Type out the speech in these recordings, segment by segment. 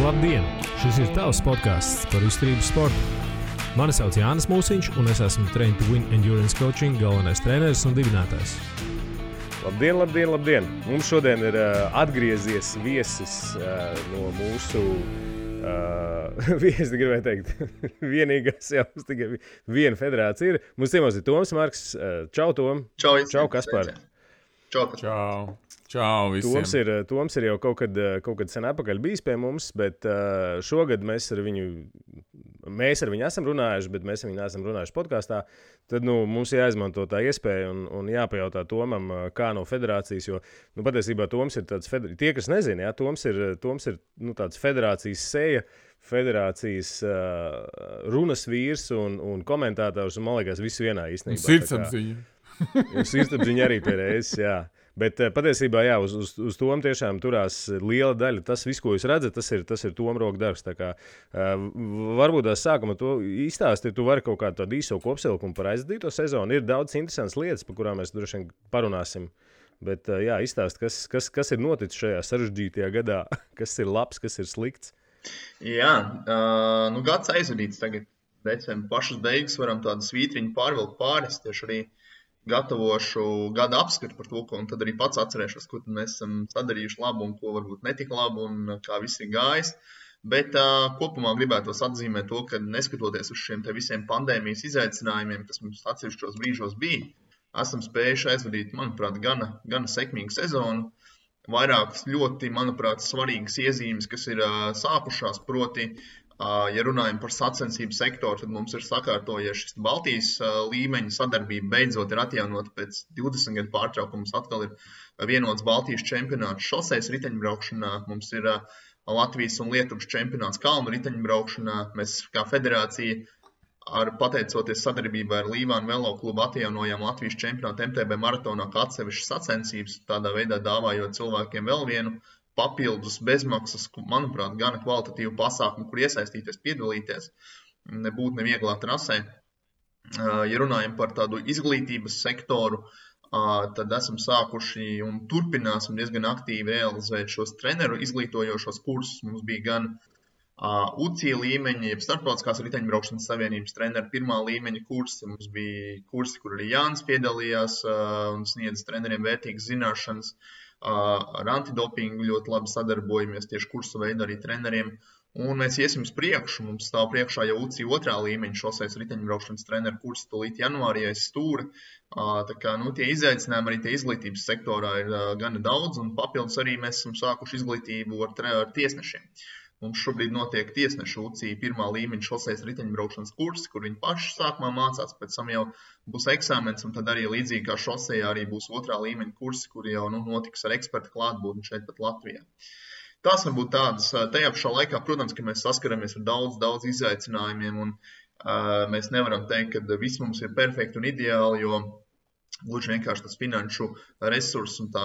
Labdien! Šis ir tavs podcasts par izturības sportu. Mani sauc Jānis Mūsiņš, un es esmu Train to Win Endurance Coaching galvenais treneris un dibinātājs. Labdien! Mums šodien ir atgriezies viesis no mūsu, es gribēju teikt, vienīgās jau tikai viena federācija ir. Mums ciemos ir Toms Marks. Čau, Tom! Čau, Kaspar! Čau visiem! Toms ir jau kaut kad sen atpakaļ bijis pie mums, bet šogad mēs ar viņu esam runājuši, bet mēs ar viņu neesam runājuši podkastā. Tad mums jāizmanto tā iespēja un jāpajautā Tomam, kā no federācijas, jo patiesībā Toms ir tāds, tie, kas nezina, Toms ir tāds federācijas seja, federācijas runas vīrs un komentētājs, un man liekas, visu vienā īstenībā. Sirdsapziņa. Sirdsapziņa arī pie reizes, jā. Bet patiesībā, jā, uz Tomu tiešām turās liela daļa. Tas viss, ko jūs redzat, tas ir Toma roka darbs. Tā kā varbūt tās sākuma to izstāstīt, tu vari kaut kādu tādu īso kopsavilkumu par aizdīto sezonu. Ir daudz interesantas lietas, par kurām mēs droši vien parunāsim. Bet, jā, izstāst, kas ir noticis šajā sarežģītajā gadā, kas ir labs, kas ir slikts. Jā, gads aizvadīts tagad. Decembra pašas beigas varam tādu svītriņu pārvilkt pāris, tieši arī gatavošu gada apskatu par to, un tad arī pats atcerēšos, ko mēs esam sadarījuši labu un ko varbūt netika labu un kā viss ir gājis. Bet kopumā gribētos atzīmēt to, ka neskatoties uz šiem te visiem pandēmijas izaicinājumiem, kas mums atsevišķos brīžos bija, esam spējuši aizvadīt, manuprāt, gana sekmīgu sezonu. Vairākas ļoti, manuprāt, svarīgas iezīmes, kas ir sākušās, proti, ja runājam par sacensību sektoru, tad mums ir sakārtojies šis Baltijas līmeņa sadarbība beidzot ir atjaunota pēc 20 gadu pārtraukums. Atkal ir vienots Baltijas čempionāts šoseis riteņbraukšanā, mums ir Latvijas un Lietuvas čempionāts kalnu riteņbraukšanā. Mēs kā federācija pateicoties sadarbībā ar Līvānu Velo klubu atjaunojām Latvijas čempionātu MTB maratonā kā atsevišķas sacensības, tādā veidā dāvājot cilvēkiem vēl vienu papildus bezmaksas, manuprāt, gana kvalitatīvu pasākumu, kur iesaistīties, piedalīties, nebūt nevieglā trasē. Ja runājam par tādu izglītības sektoru, tad esam sākuši un turpināsim diezgan aktīvi realizēt šos treneru izglītojošos kursus. Mums bija gan UCI līmeņa, jeb starptautiskās riteņbraukšanas savienības treneru pirmā līmeņa kursi. Mums bija kursi, kur arī Jānis piedalījās un sniedz treneriem vērtīgas zināšanas. Ar antidopingu ļoti labi sadarbojamies tieši kursu veidu arī treneriem. Un mēs iesim uz priekšu. Mums stāv priekšā jau UCI otrā līmeņa šoseis riteņbraukšanas treneru kursi tūlīt janvārī aiz stūra. Tā kā tie izaicinājumi arī tie izglītības sektorā ir gana daudz, un papildus arī mēs esam sākuši izglītību ar tiesnešiem. Mums šobrīd notiek tiesnešu UCI pirmā līmeņa šoseis riteņbraukšanas kursi, kur viņi paši sākumā mācās, pēc tam jau būs eksāmens, un tad arī līdzīgi kā šosejā arī būs otrā līmeņa kursi, kuri jau notiks ar ekspertu klātbūtni šeit pat Latvijā. Tās varbūt tādas, tajā pašā laikā, protams, ka mēs saskaramies ar daudz izaicinājumiem, un mēs nevaram teikt, ka viss mums ir perfekti un ideāli, jo gluži vienkārši tas finanšu resurss un tā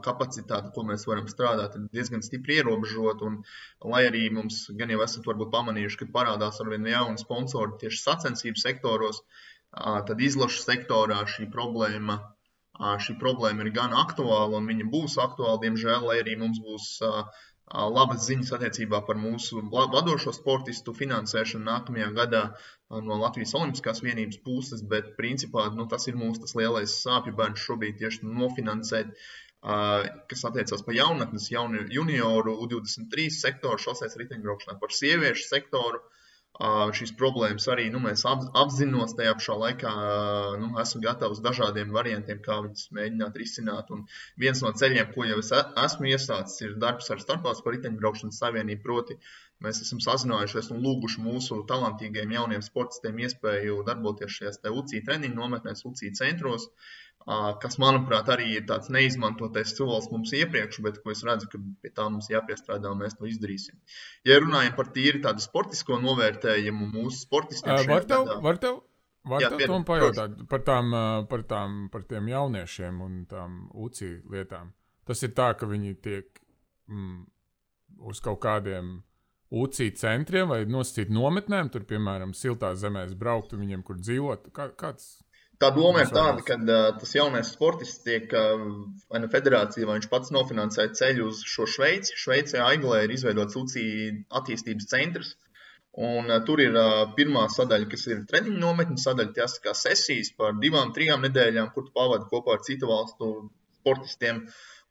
kapacitāte, ko mēs varam strādāt, ir diezgan stipri ierobežot. Un, lai arī mums gan jau esat varbūt pamanījuši, ka parādās arvien jauni sponsori tieši sacensību sektoros, tad izlašu sektorā šī problēma ir gan aktuāla un viņa būs aktuāla, diemžēl, lai arī mums būs labas ziņas attiecībā par mūsu vadošo sportistu finansēšanu nākamajā gadā no Latvijas Olimpiskās vienības puses, bet principā tas ir mūsu tas lielais sāpju bērns šobrīd tieši nofinansēt, kas attiecās par jaunatnes, junioru, U23 sektoru, šoseis riteņbraukšanā, par sieviešu sektoru. Šīs problēmas arī mēs apzinos tajā pašā laikā, esmu gatavs dažādiem variantiem, kā viņas mēģināt risināt. Un viens no ceļiem, ko jau es esmu iesācis, ir darbs ar starptautisko riteņbraukšanas savienību, proti mēs esam sazinājušies un lūguši mūsu talantīgiem jauniem sportistiem iespēju darboties šajās UCI treniņu nometnēs, UCI centros, kas, manuprāt, arī ir tāds neizmantotais solis mums iepriekš, bet ko es redzu, ka pie tā mums jāpiestrādā un mēs to izdarīsim. Ja runājam par tīri tādu sportisko novērtējumu mūsu sportistiem Var tev Tom pajautāt par tiem jauniešiem un tām UCI lietām? Tas ir tā, ka viņi tiek uz kaut kādiem UCI centriem vai nosacīt nometnēm, tur, piemēram, siltās zemēs braukt un viņiem, kur dzīvot? Kāds? Tā doma ir tāda, ka tas jaunais sportists tiek vai federācija, vai viņš pats nofinansē ceļu uz šo Šveici. Šveicē Aiglē ir izveidots UCI attīstības centrs. Un tur ir pirmā sadaļa, kas ir treniņu nometņu sadaļa, tas kā sesijas par 2-3 nedēļām, kur tu pavadi kopā ar citu valstu sportistiem.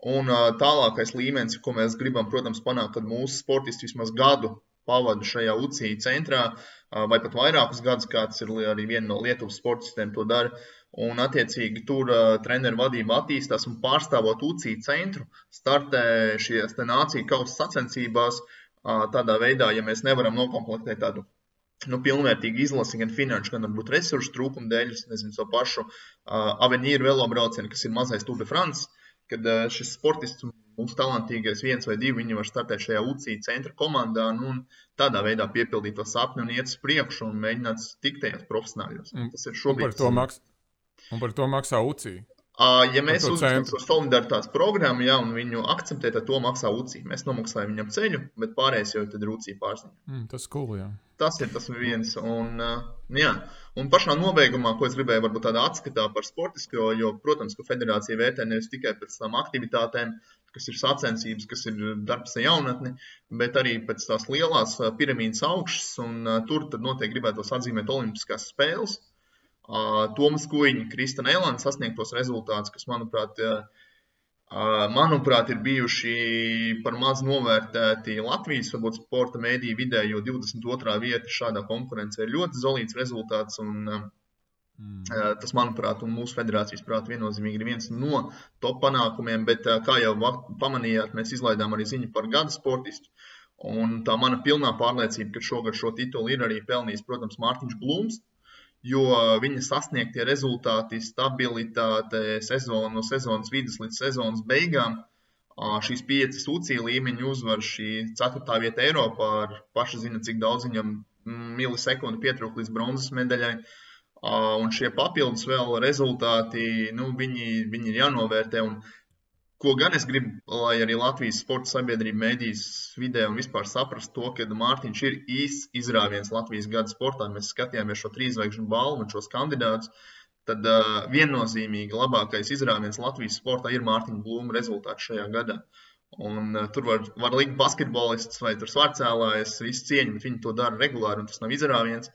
Un tālākais līmenis, ko mēs gribam, protams, panākt, kad mūsu sportisti vismaz gadu pavada šajā UCI centrā, vai pat vairākus gadus, kāds ir arī viena no Lietuvas sportistiem to dara. Un, attiecīgi, tur treneru vadība attīstās un pārstāvot UCI centru, startē šies nāciju kausa sacensībās tādā veidā, ja mēs nevaram nokomplektēt tādu pilnvērtīgu izlasi, gan finanšu, gan varbūt resursu trūkumu dēļ, nezinu, so pašu Avenīru velobraucienu, kas ir mazais Tour de France, kad šis sportists, mums talantīgais 1 vai 2, viņi var startēt šajā UCI centra komandā un tādā veidā piepildīt to sapni un iet uz priekšu un mēģināt tikt tajos profesionāļos. Tas ir šobrīd. Un par to maksā UCI? Ja mēs uzskatām šo solidaritātes programmu, un viņu akceptē, tad to maksā UCI. Mēs nomaksājam viņam ceļu, bet pārējais jau tad ir UCI pārziņa. Tas cool, jā. Tas ir viens. Un pašā nobeigumā, ko es gribēju varbūt tādā atskatā par sportisko, jo, protams, ka federācija vērtē nevis tikai pēc tām aktivitātēm, kas ir sacensības, kas ir darbs ar jaunatni, bet arī pēc tās lielās piramīdas augšas, un tur tad noteikti gribētos atzīmēt olimpiskās spēles. Tomas Kuiņa, Kristana Elāna sasniegtos rezultātus, kas, manuprāt, ir bijuši par maz novērtēti Latvijas, varbūt sporta mēdīju vidē, jo 22. vieta šādā konkurencē ir ļoti zolīts rezultāts, un tas, manuprāt, un mūsu federācijas prāt viennozīmīgi ir viens no top panākumiem, bet, kā jau pamanījāt, mēs izlaidām arī ziņu par gada sportistu, un tā mana pilnā pārliecība, ka šogad šo titulu ir arī pelnījis, protams, Mārtiņš Blūms, jo viņa sasniegtie rezultāti, stabilitāte no sezonas vidas līdz sezonas beigām, šīs 5 UCI līmeņu uzvar, šī 4. vieta Eiropā, ar paši zina, cik daudz viņam milisekundi pietrūk līdz bronzas medaļai, un šie papildus vēl rezultāti, viņi ir jānovērtē, un ko gan es gribu, lai arī Latvijas sporta sabiedrība mēdīs vidē un vispār saprast to, ka Mārtiņš ir īsts izrāviens Latvijas gada sportā. Mēs skatījāmies šo 3 zvaigžņu balvu un šos kandidātus, tad viennozīmīgi labākais izrāviens Latvijas sportā ir Mārtiņa Blūma rezultāts šajā gadā. Un tur var likt basketbolists vai tur svarcēlājs, visu cieņu, bet viņi to dara regulāri un tas nav izrāviens.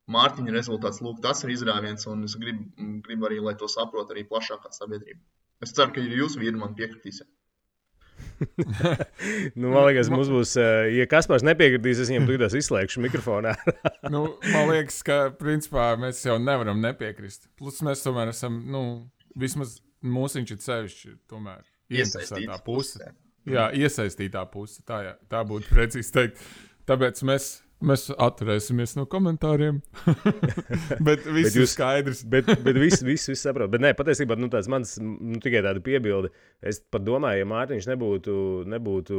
Mārtiņa rezultāts, lūk, tas ir izrāviens un es gribu arī, lai to saprot arī plašākā sabiedrība. Es ceru, ka jūs vīri man piekritīsiet. Man liekas, mums būs, ja Kaspars nepiekritīs, es viņam tūdās izslēgšu mikrofonā. Man liekas, ka principā mēs jau nevaram nepiekrist. Plus mēs tomēr esam, vismaz mūsiņš ir sevišķi tomēr ieinteresētā puse. Jā, iesaistītā puse, tā būtu precīzi teikt. Tāpēc mēs atturēsimies no komentāriem. bet viss ir skaidrs. bet viss saprot. Bet nē, patiesībā tāds mans tikai tāda piebilde. Es pat domāju, ja Mārtiņš nebūtu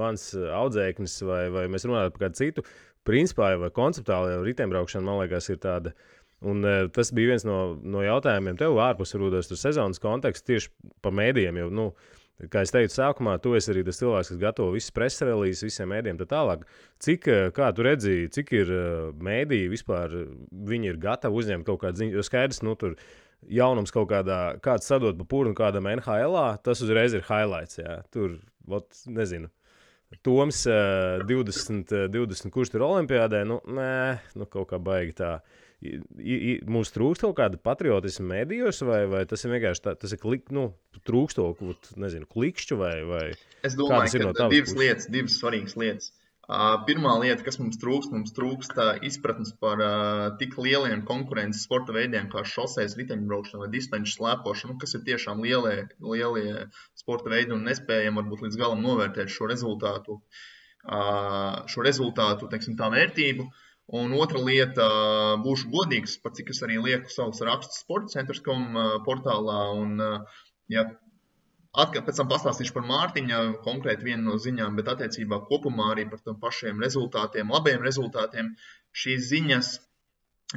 mans audzēknis vai mēs runātu par kādu citu, principā vai konceptuāli jau riteņbraukšana, man liekas, ir tāda. Un tas bija viens no jautājumiem tev ārpus varbūt tur sezonas konteksts tieši par mēdījiem jau, kā es teicu sākumā, tu esi arī tas cilvēks, kas gatavo visas preses relīzes, visiem mēdījiem tā tālāk. Kā tu redzīji, cik ir mēdīji vispār, viņi ir gatavi uzņemt kaut kādu ziņu, jo skaidrs, tur jaunums kaut kāds sadot pa purnu kādam NHL-ā, tas uzreiz ir highlights, jā. Tur, nezinu, Toms 20, kurš tur olimpiādē, kaut kā baigi tā. Mums trūkst kaut kāda patriotisma medijos, vai tas ir vienkārši tas ir trūkst to, nezinu, klikšķu vai es domāju, ka divas svarīgas lietas. Pirmā lieta, kas mums trūkst izpratnes par tik lieliem konkurences sporta veidiem kā šosejas riteņbraukšana vai distanču slēpošana, kas ir tiešām lielie sporta veidi un nespējam varbūt līdz galam novērtēt šo rezultātu, teiksim, tā vērtību. Un otra lieta, būšu godīgs, par cik es arī lieku savus rakstus sportcentrs.com portālā. Un, pēc tam pastāstīšu par Mārtiņa, konkrēti vienu no ziņām, bet attiecībā kopumā arī par tiem pašiem rezultātiem, labiem rezultātiem. Šīs ziņas,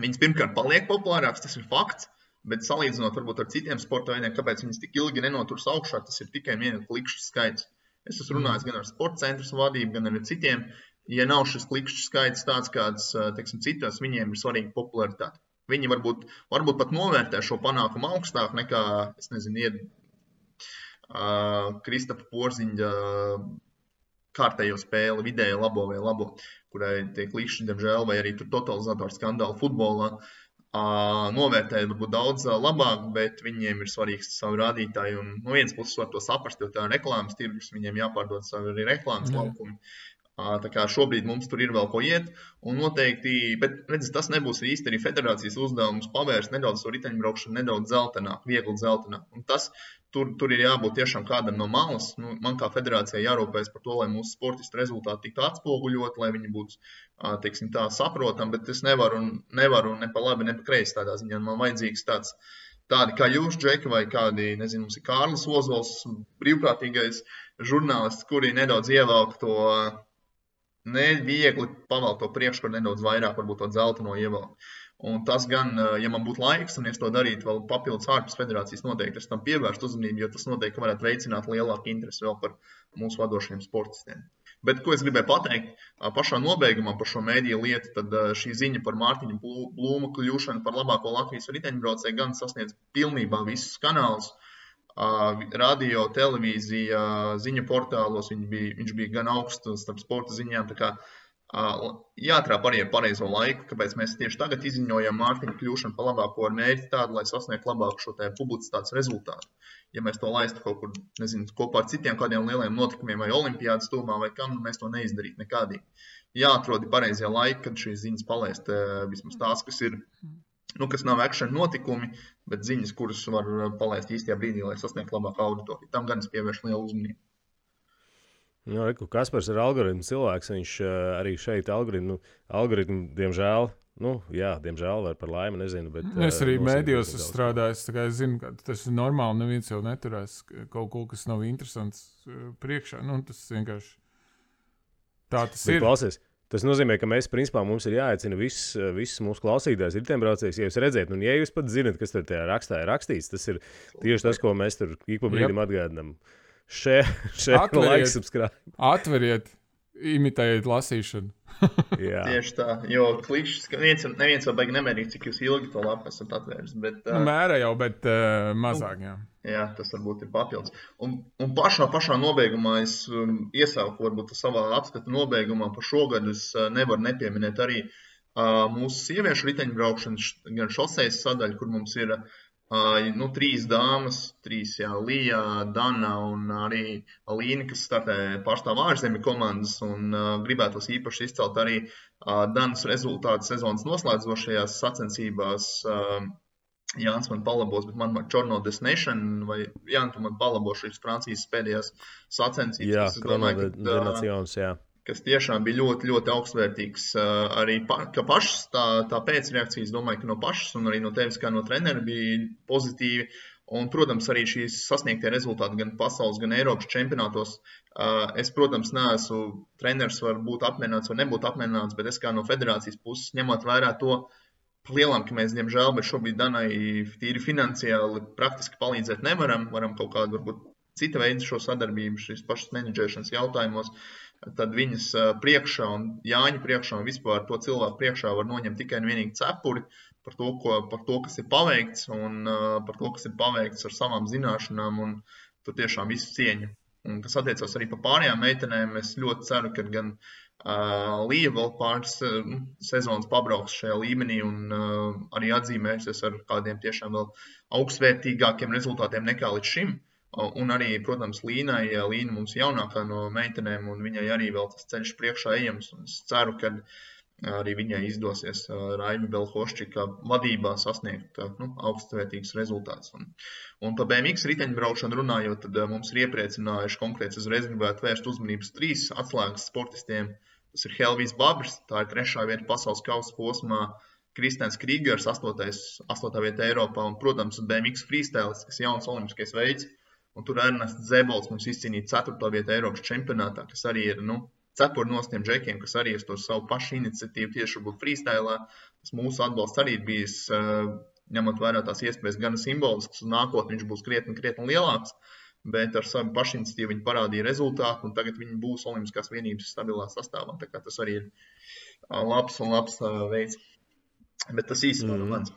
viņas pirmkārt paliek populārākas, tas ir fakts, bet salīdzinot varbūt ar citiem sporta veidiem, kāpēc viņas tik ilgi nenoturs augšā, tas ir tikai viena klikšķu skaits. Es esmu runājis gan ar sportcentras vadību, gan ar citiem. Ja nav šis klikšķu skaits tāds, kāds, teiksim, citos, viņiem ir svarīga popularitāte. viņi varbūt pat novērtē šo panākumu augstāk nekā, es nezinu, Kristafa Porziņa kārtējo spēli, vidēji labo vai labo, kurai tiek līkšķi, diemžēl, vai arī tur totalizatoru skandālu futbolā. Novērtēt varbūt daudz labāk, bet viņiem ir svarīgs savu rādītāju. Un no vienas puses var to saprast, jo tā ir reklāmas tirgus, viņiem jāpārdod savu arī reklāmas laukumi. Tā kā šobrīd mums tur ir vēl ko iet, un noteikti, bet redz, tas nebūs īsti arī federācijas uzdevums pavērst nedaudz to riteņbraukšanu, nedaudz zeltenāk, viegli zeltenāk. Un tas, tur ir jābūt tiešām kādam no malas. Man kā federācijai jārūpējas par to, lai mūsu sportistu rezultāti tiktu atspoguļot, lai viņi būtu, teiksim tā, saprotam, bet es nevaru ne pa labi, ne pa kreisi tādā ziņā. Man vajadzīgs tādi kā jūs, Džeki, vai kādi, nezinu, mums ir Kārlis Ozols, brīvprātīgais žurnālists, kuri nedaudz ievelk to neviegli pavēlt to priekškaru nedaudz vairāk, varbūt to zelteno ievelk. Un tas gan, ja man būtu laiks, un es to darītu vēl papildus ārpus federācijas, noteikti es tam pievērstu uzmanību, jo tas noteikti varētu veicināt lielāku interesi vēl par mūsu vadošiem sportistiem. Bet, ko es gribēju pateikt, pašā nobeigumā par šo mēdīju lietu, tad šī ziņa par Mārtiņu Blūmu kļūšanu par labāko Latvijas riteņbraucēju gan sasniedz pilnībā visus kanālus. Radio, televīzija, ziņu portālos, viņš bija gan augsts starp sporta ziņām, tā kā jāatrāp arī ar pareizo laiku, kāpēc mēs tieši tagad izziņojam Mārtiņu kļūšanu par labāko ar mērķi tādu, lai sasniegtu labāku šo publicitātes rezultātu. Ja mēs to laistu kaut kur, nezinu, kopā ar citiem kādiem lieliem notikumiem vai olimpiādas tūmā vai kam, mēs to neizdarītu nekādīgi. Jāatrodi pareizie laiki, kad šīs ziņas palaist vismaz tās, kas ir kas nav action notikumi, bet ziņas, kuras var palaist īstajā brīdī, lai sasniegtu labāku auditoriju. Tam gan es pievēršu lielu uzmanību. Kaspars ir algoritmu cilvēks, viņš arī šeit algoritmu, diemžēl, diemžēl vai par laimi, nezinu. Bet, es arī mēdījos strādāju, tā kā es zinu, ka tas ir normāli, neviens jau neturēs kaut ko, kas nav interesants priekšā. Tas vienkārši tā tas ir. Klausies. Tas nozīmē, ka principā mums ir jāaicina visus mūsu klausītājus, riteņbraucējus, ja jūs redzēt, un ja jūs pat zinat, kas tur tajā rakstā ir rakstīts, tas ir tieši tas, ko mēs tur ik pa brīdim atgādinām. Share, like, subscribe. Atveriet, imitējiet lasīšanu. Tieši tā, jo klikšķis, neviens vēl baigi nemērīt, cik jūs ilgi to lapu esat atvērs. Bet, mērē jau, bet mazāk, jā. Jā, tas varbūt ir papildus. Un pašā nobeigumā es iesauku varbūt savā apskata nobeigumā par šogad es nevaru nepieminēt arī mūsu sieviešu riteņbraukšanu, gan šosejas sadaļu, kur mums ir 3 dāmas, 3 Lija, Dana un arī Alīna, kas startē pārstāv ārzemju komandas un gribētos īpaši izcelt arī Danas rezultātu sezonas noslēdzošajās sacensībās. Jānis man palabos, bet man Chrono Destination, vai Jānis, tu man palabo šīs Francijas pēdējās sacensības. Jā, Chrono Destination, jā. Kas tiešām bija ļoti, ļoti augstvērtīgs. Arī ka pašas tā pēcreakcijas, domāju, ka no pašas un arī no tevis kā no trenera bija pozitīvi. Un, protams, arī šīs sasniegtie rezultāti gan pasaules, gan Eiropas čempionātos. Es, protams, neesmu treneris, var būt apmierināts vai nebūt apmierināts, bet es kā no federācijas puses ņemot vērā to, lielām, ka mēs, diemžēl, bet šobrīd Danai tīri finansiāli praktiski palīdzēt nevaram. Varam kaut kādu, varbūt, cita veida šo sadarbību, šīs pašas menedžēšanas jautājumos. Tad viņas priekšā un Jāņa priekšā un vispār to cilvēku priekšā var noņemt tikai un vienīgi cepuri par to, kas ir paveikts un par to, kas ir paveikts ar savām zināšanām un tur tiešām visu cieņu. Un kas attiecās arī par pārējām meitenēm, es ļoti ceru, ka gan Lija vēl pāris sezonas pabrauks šajā līmenī un arī atzīmēsies ar kādiem tiešām vēl augstvērtīgākiem rezultātiem nekā līdz šim. Un arī, protams, Līna mums jaunākā no meitenēm un viņai arī vēl tas ceļš priekšā ejams. Un es ceru, ka arī viņai izdosies Raimi Belhoščika vadībā sasniegt augstvērtīgus rezultātus. Un par BMX riteņbraušanu runājot, tad mums ir iepriecinājuši konkrēti uzreiz gribētu vērst uzmanības 3 atslēgas sportistiem. Tas ir Helvijs Babrs, tā ir 3. vieta pasaules kausa posmā, Kristēns Krīgers, 8. vieta Eiropā un, protams, BMX freestyles, kas jauns olimpiskais veids. Un tur Ernests Zebols mums izcīnīja 4. vieta Eiropas čempionātā, kas arī ir, cepuri no tiem džekiem, kas arī uz to savu pašu iniciatīvu tieši būt freestylā. Tas mūsu atbalsts arī ir bijis, ņemot vērā tās iespējas gan simbolisks, un nākotnē viņš būs krietni lielāks, bet ar savu pašu iniciatīvu viņi parādīja rezultātu, un tagad viņi būs olimpiskās vienības stabilā sastāvā. Tā kā tas arī ir labs veids. Bet tas īsti no mans.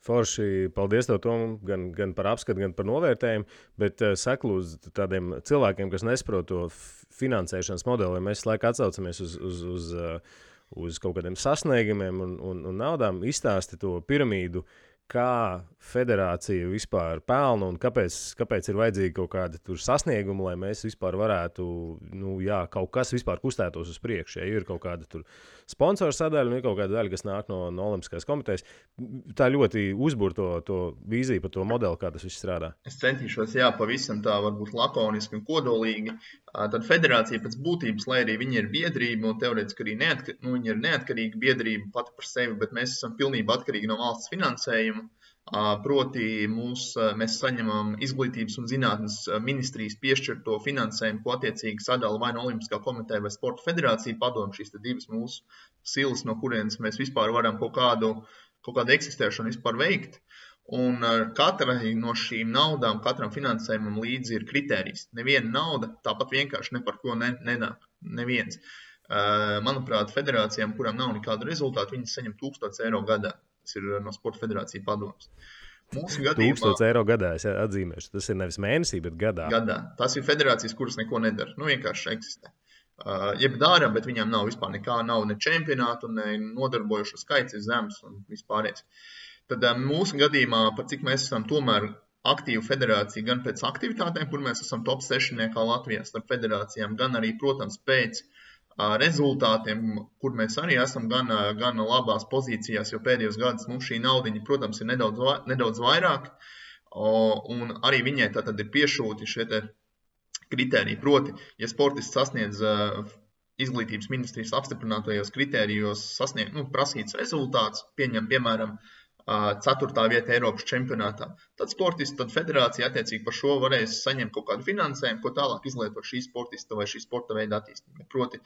Forši, paldies tev, Tom, gan par apskatu, gan par novērtējumu, bet saku uz tādiem cilvēkiem, kas nesaprot to finansēšanas modeli, ja mēs laiku atsaucamies uz kaut kādiem sasniegumiem un naudām, izstāsti to piramīdu, kā federācija vispār pelna un kāpēc ir vajadzīgi kaut kādi tur sasniegumi, lai mēs vispār varētu, kaut kas vispār kustētos uz priekšu. Ja ir kaut kāda tur sponsoru sadaļa un ir kaut kāda daļa, kas nāk no Olimpiskās komitejas. Tā ļoti uzbur to vīziju par to modeli, kā tas viss strādā. Es centīšos, pavisam tā varbūt lakoniski un kodolīgi. Tad federācija pēc būtības, lai arī viņi ir biedrība un teorētiski arī viņi ir neatkarīga biedrība pati par sevi, bet mēs esam pilnībā atkarīgi no valsts finansējuma. Proti mēs saņemam izglītības un zinātnes ministrijas piešķirto finansējumu, ko attiecīgi sadala vai no Olimpiskā komiteja vai Sporta federācija padomu, šīs divas mūsu silas, no kurienes mēs vispār varam kaut kādu eksistēšanu vispār veikt. Un katrai no šīm naudām, katram finansējumam līdzi ir kritērijs. Neviena nauda tāpat vienkārši ne par ko nenāk. Neviens. Manuprāt, federācijām, kurām nav nekāda rezultāta, viņas saņem 1000 eiro gadā. Tas ir no Sporta federācija padomas. 1000 eiro gadā, es atzīmēšu. Tas ir nevis mēnesī, bet gadā. Gadā. Tas ir federācijas, kuras neko nedara. Vienkārši eksistē. Jeb dara, bet viņām nav vispār nekā, nav ne čempionātu, ne nodarbojušo skaits ir zems un vispārējais. Tad mūsu gadījumā, par cik mēs esam tomēr aktīva federācija, gan pēc aktivitātēm, kur mēs esam top 6 Latvijā starp federācijām, gan arī, protams, pēc rezultātiem, kur mēs arī esam gan labās pozīcijās, jo pēdējos gadus mums šī naudiņa, protams, ir nedaudz vairāk, un arī viņai tātad ir piešūti šie te kritēriji. Proti, ja sportists sasniedz izglītības ministrijas apstiprinātajos kritērijos prasīts rezultāts, piemēram, 4. vieta Eiropas čempionātā. Tad sportists, tad federācija attiecīgi par šo varēs saņemt kaut kādu finansējumu, ko tālāk izlietot šī sportista vai šī sporta veida attīstībai. Proti,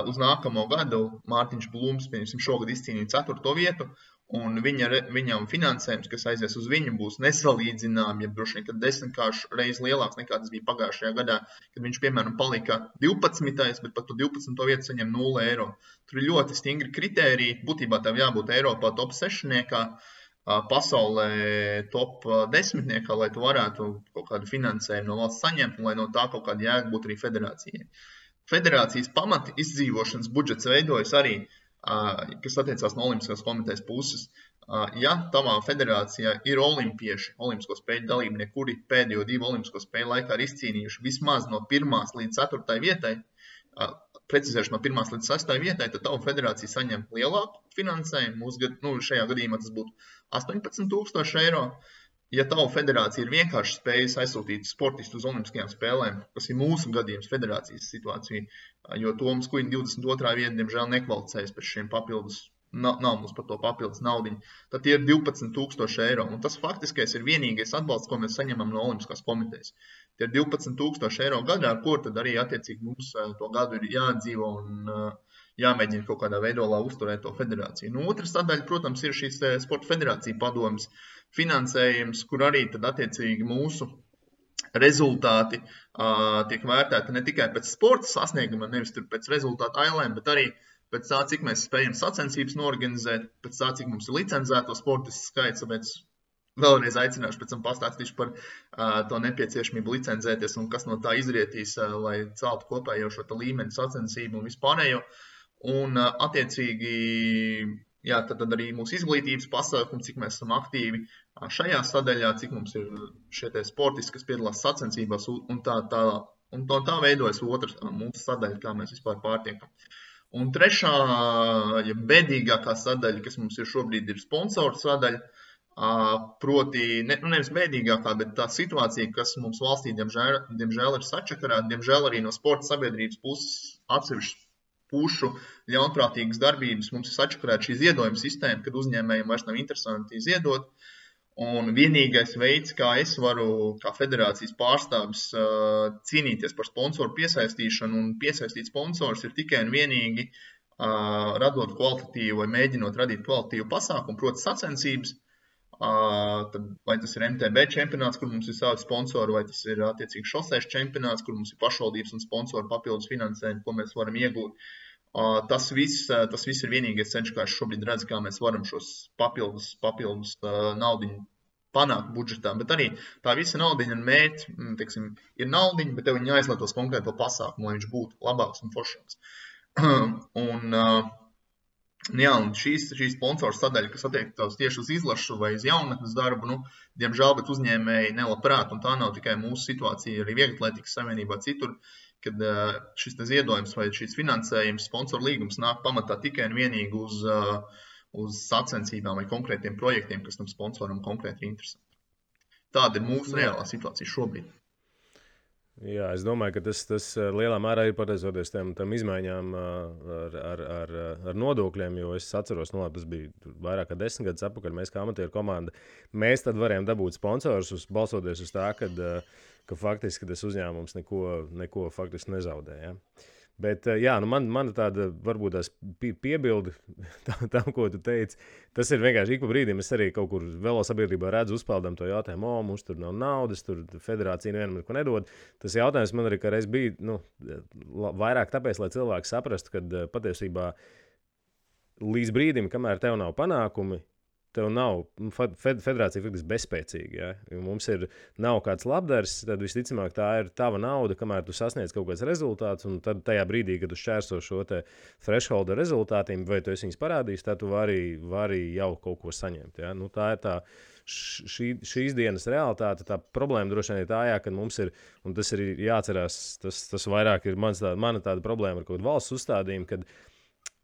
uz nākamo gadu Mārtiņš Blūms, šogad izcīnīja 4. vietu, un viņam finansējums, kas aizies uz viņu, būs nesalīdzināmi, ja droši vien, kad 10 reiz lielāks nekā tas bija pagājušajā gadā, kad viņš, piemēram, palika 12. bet par to 12. vietu saņem 0 eiro. Tur ir ļoti stingri kritēriji, būtībā tev jābūt Eiropā top 6, pasaulē top 10, lai tu varētu kaut kādu finansējumu no valsts saņemt, un lai no tā kaut kāda jēga būtu arī federācijai. Federācijas pamati izdzīvošanas budžets veidojas arī, kas attiecās no Olimpiskās komitejas puses. Ja tavā federācijā ir olimpieši, olimpisko spēļu dalībnieki, kuri pēdējo 2 olimpisko spēļu laikā ir izcīnījuši vismaz no 1. līdz 4. vietai, precizēšu no 1. līdz 6. vietai, tad tava federācija saņem lielāku finansējumu. Šajā gadījumā tas būtu 18,000 eiro. Ja tava federācija ir vienkārši spējusi aizsūtīt sportistu uz olimpiskajām spēlēm, kas ir mūsu gadījums federācijas situācija, jo Toms Kuiņa 22. vieta, diemžēl, nekvalificējas pēc šiem papildus, nav mums par to papildus naudiņu, tad tie ir 12,000 eiro. Un tas faktiskais ir vienīgais atbalsts, ko mēs saņemam no Olimpiskās komitejas. Tie ir 12,000 eiro gadā, ar ko tad arī attiecīgi mums to gadu ir jādzīvo un jāmēģina kaut kādā veidolā uzturēt to federāciju. Otra sadaļa, protams, ir šīs Sporta federācija padomas finansējums, kur arī tad attiecīgi mūsu rezultāti tiek vērtēti ne tikai pēc sporta sasnieguma, nevis tur pēc rezultātu ailēm, bet arī pēc tā, cik mēs spējam sacensības norganizēt, pēc tā, cik mums ir licencēto sportistu skaits, tāpēc vēlreiz aicināšu pēc tam pastāstīšu par to nepieciešamību licencēties un kas no tā izrietīs, lai celtu kopējo šo līmeni sacensību un vispārējo. Un attiecīgi, tad arī mūsu izglītības pasākumi, cik mēs esam aktīvi šajā sadaļā, cik mums ir šie sportisti, kas piedalās sacensībās un tā veidojas otra mūsu sadaļa, kā mēs vispār pārtiekam. Un trešā, bēdīgākā sadaļa, kas mums ir šobrīd, ir sponsoru sadaļa, proti, nevis bēdīgākā, bet tā situācija, kas mums valstī, diemžēl ir sačakarāta, diemžēl arī no sporta sabiedrības puses atsevišķi pušu ļaunprātīgas darbības mums ir sačakarēta šī ziedojuma sistēma, kad uzņēmējiem vairs nav interesanti ziedot. Un vienīgais veids, kā es varu, kā federācijas pārstāvis, cīnīties par sponsoru piesaistīšanu un piesaistīt sponsorus, ir tikai un vienīgi radot kvalitatīvu vai mēģinot radīt kvalitatīvu pasākumu, proti sacensības. Vai tas ir MTB čempionāts, kur mums ir savi sponsori, vai tas ir attiecīgi šosēšu čempionāts, kur mums ir pašvaldības un sponsori papildus finansējumi, ko mēs varam iegūt. Tas viss ir vienīgais ceļš, kā es šobrīd redzu, kā mēs varam šos papildus naudiņu panākt budžetā. Bet arī tā visa naudiņa un mērķi, teiksim, ir naudiņa, bet tev viņi jāizlietos konkrēto pasākumu, lai viņš būtu labāks un foršāks. Un šīs sponsors sadaļa, kas attiektos tieši uz izlašu vai uz jaunatnes darbu, diemžēl, bet uzņēmēji nelabprāt, un tā nav tikai mūsu situācija, arī Vieglatlētikas savienībā citur, kad šis ziedojums vai šis finansējums, sponsoru līgums nāk pamatā tikai un vienīgi uz sacensībām vai konkrētiem projektiem, kas tam sponsoram konkrēti ir interesanti. Tāda ir mūsu reālā situācija šobrīd. Jā, es domāju, ka tas lielā mērā ir pateicoties tam izmaiņām ar nodokļiem, jo es atceros, tas bija vairāk kā 10 gadus atpakaļ, mēs kā amatieru komanda, mēs tad varējām dabūt sponsorus, balsoties uz tā, ka faktiski tas uzņēmums neko faktiski nezaudēja. Ja? Bet, man tāda varbūt tās piebildi tam, ko tu teici, tas ir vienkārši ik pa brīdim. Es arī kaut kur velosabiedrībā redzu uzpeldam to jautājumu, mums tur nav naudas, tur federācija nevienam neko nedod. Tas jautājums man arī kādreiz bija vairāk tāpēc, lai cilvēki saprastu, ka patiesībā līdz brīdim, kamēr tev nav panākumi, tev nav, federācija faktiski bezspēcīga, ja mums nav kāds labdars, tad visticamāk tā ir tava nauda, kamēr tu sasniedz kaut kāds rezultāts, un tad tajā brīdī, kad tu šķērso šo te thresholda rezultātiem, vai tu esi viņus parādījis, tad tu vari jau kaut ko saņemt, ja? Tā ir šīs dienas realitāte, tā problēma droši vien ir tā, ka mums ir, un tas ir jāatcerās, tas vairāk ir mana tāda problēma ar kaut kādu valsts uzstādījumu, kad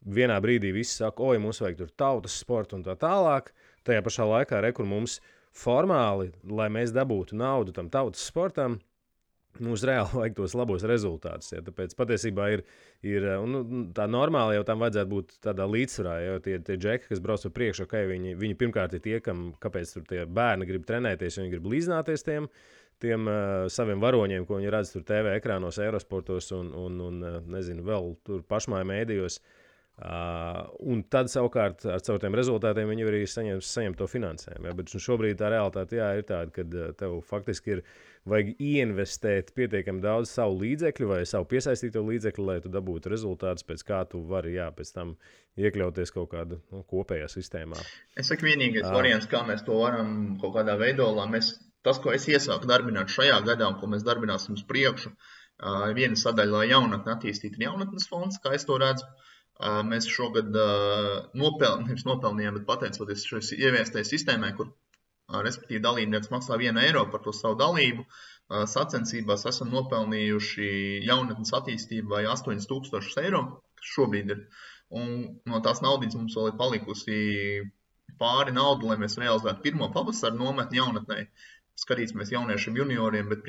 vienā brīdī visi saka, mums vajag tur tautas sportu un tā tālāk. Tajā pašā laikā, kur mums formāli, lai mēs dabūtu naudu tam tautas sportam, mums reāli vajag tos labos rezultātus. Ja? Tāpēc patiesībā ir tā normāli jau tam vajadzētu būt tādā līdzsvarā. Jo tie džeki, kas brauc pa priekšu, viņi pirmkārt ir tie, kāpēc tur tie bērni grib trenēties, viņi grib līdzināties tiem saviem varoņiem, ko viņi redz tur TV ekrānos, Eurosportos un nezinu, vēl tur pašmāju mēdījos. Un tad savukārt ar tiem rezultātiem viņi arī saņem to finansējumu. Ja? Bet šobrīd tā realitāte ir tāda, ka tev faktiski vajag ieinvestēt pietiekami daudz savu līdzekļu vai savu piesaistīto līdzekļu, lai tu dabūtu rezultātus, pēc kā tu vari pēc tam iekļauties kaut kādā kopējā sistēmā. Es saku, vienīgais variants, kā mēs to varam kaut kādā veidolā, tas, ko es iesāku darbināt šajā gadā un ko mēs darbināsim uz priekšu, viena sadaļa, lai jaunatni attīstītu jaunatnes fonds, kā es to redzu. Mēs šogad nopelnījām, bet pateicoties šai ieviestajai sistēmai, kur respektīvi dalībnieks maksā 1 eiro par to savu dalību, sacensībās esam nopelnījuši jaunatnes attīstībai 8,000 eiro, kas šobrīd ir. Un no tās naudas mums vēl ir palikusi pāri naudu, lai mēs realizētu pirmo pavasaru nometni jaunatnē. Skatīsimies jauniešiem junioriem, bet